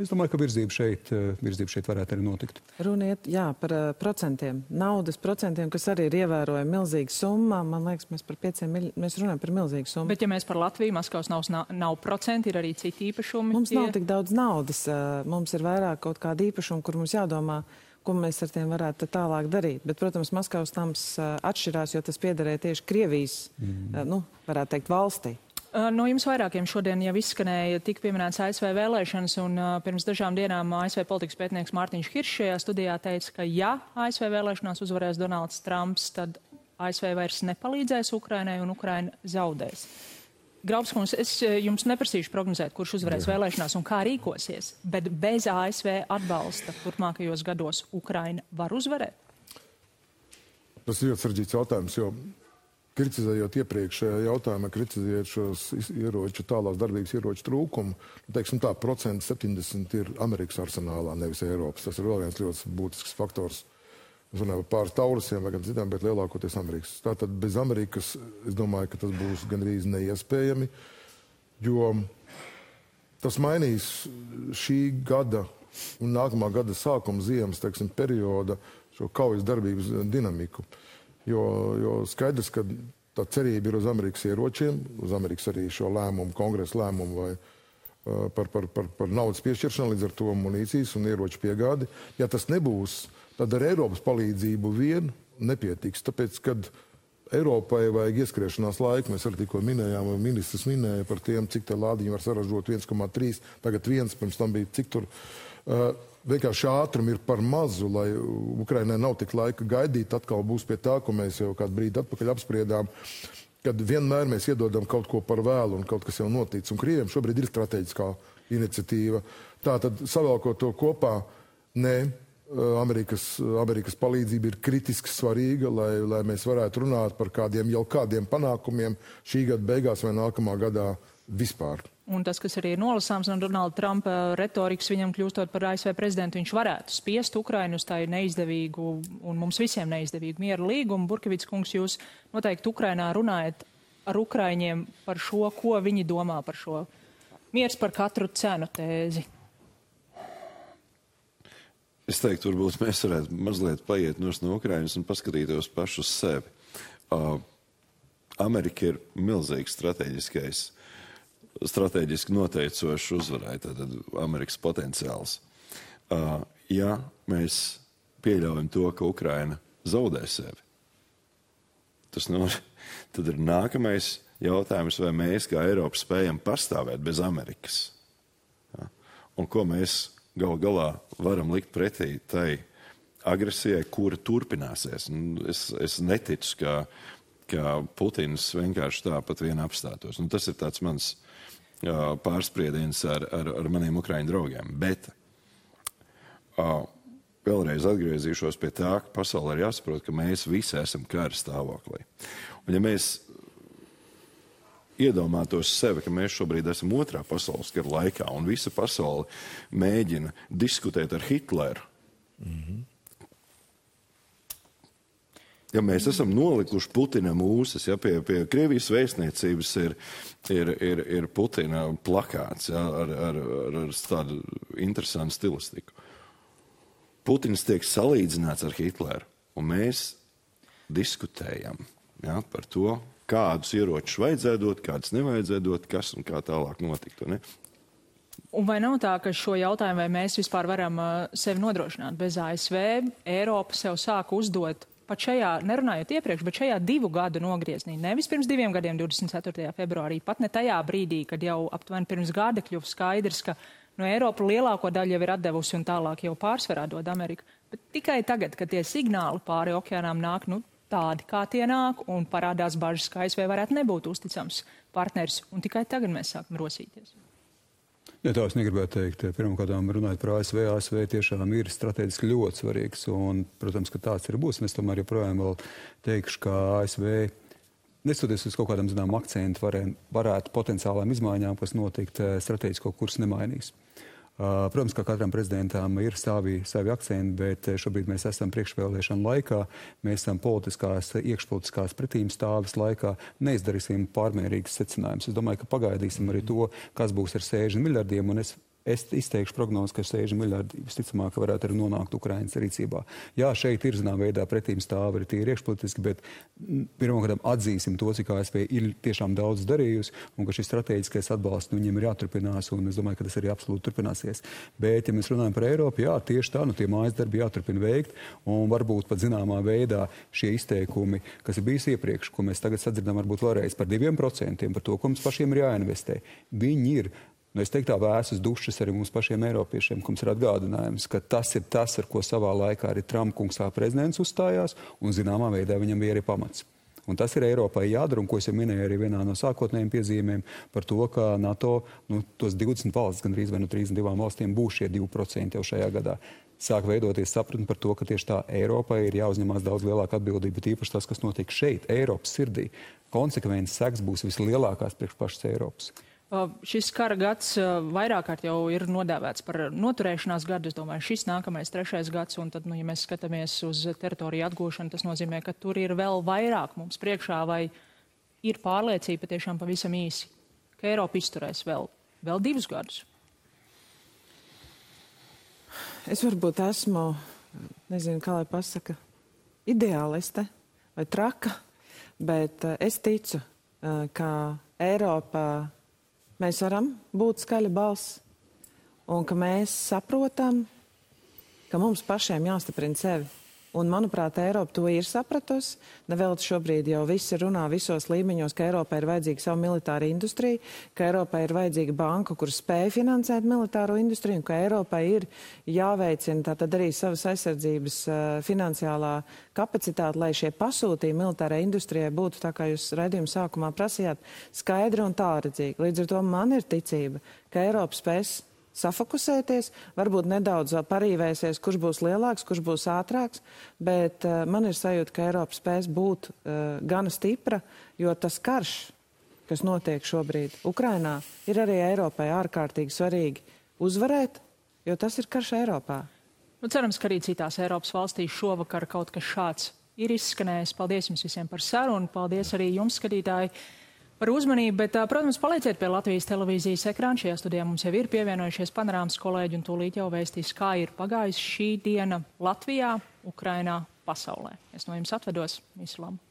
Es domāju, ka virzība šeit varētu arī notikt. Runiet, par procentiem. Naudas procentiem, kas arī ir ievērojami milzīga summa. Man liekas, mēs runājam par milzīgu summu. Bet ja mēs par Latviju, Maskavas nav procenti, ir arī citi īpašumi. Mums nav tik daudz naudas. Mums ir vairāk kaut kāda īpašuma, kur mums jādomā, ko mēs ar tiem varētu tālāk darīt. Bet, protams, Maskavas nams atšķirās, jo tas piederēja tieši Krievijas, varētu teikt, valstī. No jums vairākiem šodien jau izskanēja tik pieminēts ASV vēlēšanas, un pirms dažām dienām ASV politikas pētnieks Mārtiņš Kiršs šajā studijā teica, ka ja ASV vēlēšanās uzvarēs Donalds Trumps, tad ASV vairs nepalīdzēs Ukrainai un Ukraina zaudēs. Graubskungs, es jums neprasīšu prognozēt, kurš uzvarēs vēlēšanās un kā rīkosies, bet bez ASV atbalsta turpmākajos gados Ukraina var uzvarēt? Tas ir ļoti sarežģīts jautājums, jo kritizējot iepriekšējā jautājumā, kritizējot šos ieroču, tālās darbības ieroču trūkumu, teiksim tā, 70% ir Amerikas arsenālā, nevis Eiropas. Tas ir vēl viens ļoti būtisks faktors. Es runāju par pāris taurusiem vai gan citām, bet lielākoties Amerikas. Tātad bez Amerikas, es domāju, ka tas būs gandrīz neiespējami, jo tas mainīs šī gada un nākamā gada sākuma ziemas, teiksim, perioda šo kaujas darbības dinamiku. Jo skaidrs, ka tā cerība ir uz Amerikas ieročiem, uz Amerikas arī šo lēmumu, kongresa lēmumu vai par naudas piešķiršanu, līdz ar to munīcijas un ieroču piegādi. Ja tas nebūs, tad ar Eiropas palīdzību vien nepietiks, tāpēc, kad Eiropai vajag ieskriešanās laiku. Mēs arī tikko minējām, ministrs minēja par tiem, cik tā lādiņi var saražot 1,3, tagad 1, pirms tam bija cik tur. Vienkārši ātrumi ir par mazu, lai Ukrainai nav tik laika gaidīt, atkal būs pie tā, ko mēs jau kādu brīdi atpakaļ apspriedām, kad vienmēr mēs iedodam kaut ko par vēlu un kaut kas jau noticis. Un Krieviem šobrīd ir strateģiskā iniciatīva. Tātad savēlkot to kopā, Amerikas palīdzība ir kritiski svarīga, lai mēs varētu runāt par jau kādiem panākumiem šī gada beigās vai nākamā gadā vispār. Un tas, kas arī ir nolasāms no Donalda Trumpa retorikas, viņam kļūstot par ASV prezidentu, viņš varētu spiest Ukrainu uz tā neizdevīgu un mums visiem neizdevīgu mieru līgumu. Burkevits kungs, jūs noteikti Ukrainā runājat ar ukraiņiem par šo, ko viņi domā par šo miers par katru cenu tēzi. Es teiktu, varbūt mēs varētu mazliet paiet no Ukrainas un paskatītos pašu uz sevi. Amerika ir milzīgs strateģiski noteicošs uzvarai, tātad Amerikas potenciāls. Ja mēs pieļaujam to, ka Ukraina zaudē sevi, tad ir nākamais jautājums, vai mēs kā Eiropa spējam pastāvēt bez Amerikas. Ja? Un ko mēs gal galā varam likt pretī tai agresijai, kura turpināsies. Es neticu, ka Putins vienkārši tāpat vien apstātos. Tas ir tāds mans pārspriediens ar maniem Ukraiņu draugiem. Bet vēlreiz atgriezīšos pie tā, ka pasaulē ir jāsaprot, ka mēs visi esam kara stāvoklī. Un ja mēs iedomātos sevi, ka mēs šobrīd esam otrā pasaules kara laikā un visa pasaule mēģina diskutēt ar Hitleru, ja mēs esam nolikuši Putina mūsas, ja pie Krievijas vēstniecības ir Putina plakāts, ja, ar tādu interesantu stilistiku. Putins tiek salīdzināts ar Hitleru, un mēs diskutējam, ja, par to, kādus ieročus vajadzētu dot, kādus nevajadzētu dot, kas un kā tālāk notiktu, ne? Un vai nav tā, ka šo jautājumu, vai mēs vispār varam sevi nodrošināt bez ASV, Eiropa sev sāka uzdot pat šajā, nerunājot iepriekš, bet šajā 2 gadu nogrieznī, nevis pirms 2 gadiem, 24. februārī, pat ne tajā brīdī, kad jau aptuveni pirms gada kļuva skaidrs, ka no Eiropa lielāko daļu jau ir atdevusi un tālāk jau pārsvarā dod Amerika. Bet tikai tagad, kad tie signāli pāri okeānām nāk, tādi, kā tie nāk, un parādās bažas, ka ASV varētu nebūt uzticams partners, un tikai tagad mēs sākam rosīties. Ja tā es negribētu teikt, pirmkārt runājot par ASV, ASV tiešām ir strateģiski ļoti svarīgs, un, protams, ka tāds ir būs, un es tomēr joprojām vēl teikšu, ka ASV, nestoties uz kaut kādam, zinām, akcentu, varētu potenciālām izmaiņām, kas notikt, strateģisko kursu nemainīs. Protams, ka katram prezidentam ir savi akcenti, bet šobrīd mēs esam priekšvēlēšanu laikā, mēs esam iekšpolitiskās pretīmstāves laikā, neizdarīsim pārmērīgas secinājumus. Es domāju, ka pagaidīsim arī to, kas būs ar 60 miljardiem, un es izteikšu prognozi, ka 60 miljardi visticamāk varētu arī nonākt Ukrainas rīcībā. Jā, šeit ir zinām veidā pretīm stāvi arī tīri iekšpolitiski, bet pirmkārt atzīsim to, cik ASV ir tiešām daudz darījusi un ka šis strateģiskais atbalsts viņiem ir jāturpinās, un es domāju, ka tas arī absolūti turpināsies. Bet, ja mēs runājam par Eiropu, jā, tieši tā, tie mājas darbi jāturpina veikt, un varbūt pat zināmā veidā šie izteikumi, kas ir bijis iepriekš, ko mēs tagad sadzirdam varbūt vēlreiz par 2%, par to, ko mums pašiem ir jāinvestē. Viņi ir es teiktu tā vēsas dušas arī mums pašiem eiropiešiem, ka mums ir atgādinājums, ka tas ir tas, ar ko savā laikā arī Trumpa kungs prezidents uzstājās, un zināmā veidā viņam bija arī pamats. Un tas ir Eiropai jādara, un ko es jau minēju arī vienā no sākotnējiem piezīmēm par to, ka NATO, tos 20 valsts, gandrīz vai no 32 valstīm būs šie 2% jau šajā gadā. Sāk veidoties sapratni par to, ka tieši tā Eiropai ir jāuzņemās daudz lielāka atbildība, bet īpaši tas, kas notiek šeit, Eiropas sirdī. Konsekvences sekas būs vislielākās priekš pašas Eiropas. Šis kara gads vairāk kārt jau ir nodēvēts par noturēšanās gadu. Es domāju, šis nākamais 3. gads, un tad, ja mēs skatāmies uz teritoriju atgūšanu, tas nozīmē, ka tur ir vēl vairāk mums priekšā, vai ir pārliecība patiešām pavisam īsi, ka Eiropa izturēs vēl 2 gadus. Es varbūt esmu, nezinu, kā lai pasaka, ideāliste vai traka, bet es ticu, ka Eiropā mēs varam būt skaļa balss un ka mēs saprotam, ka mums pašiem jāstiprina sevi Un, manuprāt, Eiropa to ir sapratusi. Nevēl šobrīd jau visi runā visos līmeņos, ka Eiropai ir vajadzīga savu militāru industriju, ka Eiropai ir vajadzīga banka, kur spēj finansēt militāro industriju, un ka Eiropai ir jāveicina tātad arī savas aizsardzības finansiālā kapacitāte, lai šie pasūtījumi militārai industrijai būtu, tā kā jūs raidījuma sākumā prasījāt, skaidri un tālredzīgi. Līdz ar to man ir ticība, ka Eiropa spēs safokusēties, varbūt nedaudz parīvēsies, kurš būs lielāks, kurš būs ātrāks, bet man ir sajūta, ka Eiropa spēs būt gana stipra, jo tas karš, kas notiek šobrīd Ukrainā, ir arī Eiropai ārkārtīgi svarīgi uzvarēt, jo tas ir karš Eiropā. Nu, cerams, ka arī citās Eiropas valstīs šovakar kaut kas šāds ir izskanējis. Paldies jums visiem par sarunu, paldies arī jums, skatītāji, par uzmanību, bet, protams, palieciet pie Latvijas televīzijas ekrāna. Šajā studijā mums jau ir pievienojušies panorāmas kolēģi, un tūlīt jau vēstīs, kā ir pagājis šī diena Latvijā, Ukrainā, pasaulē. Es no jums atvedos. Visu labu!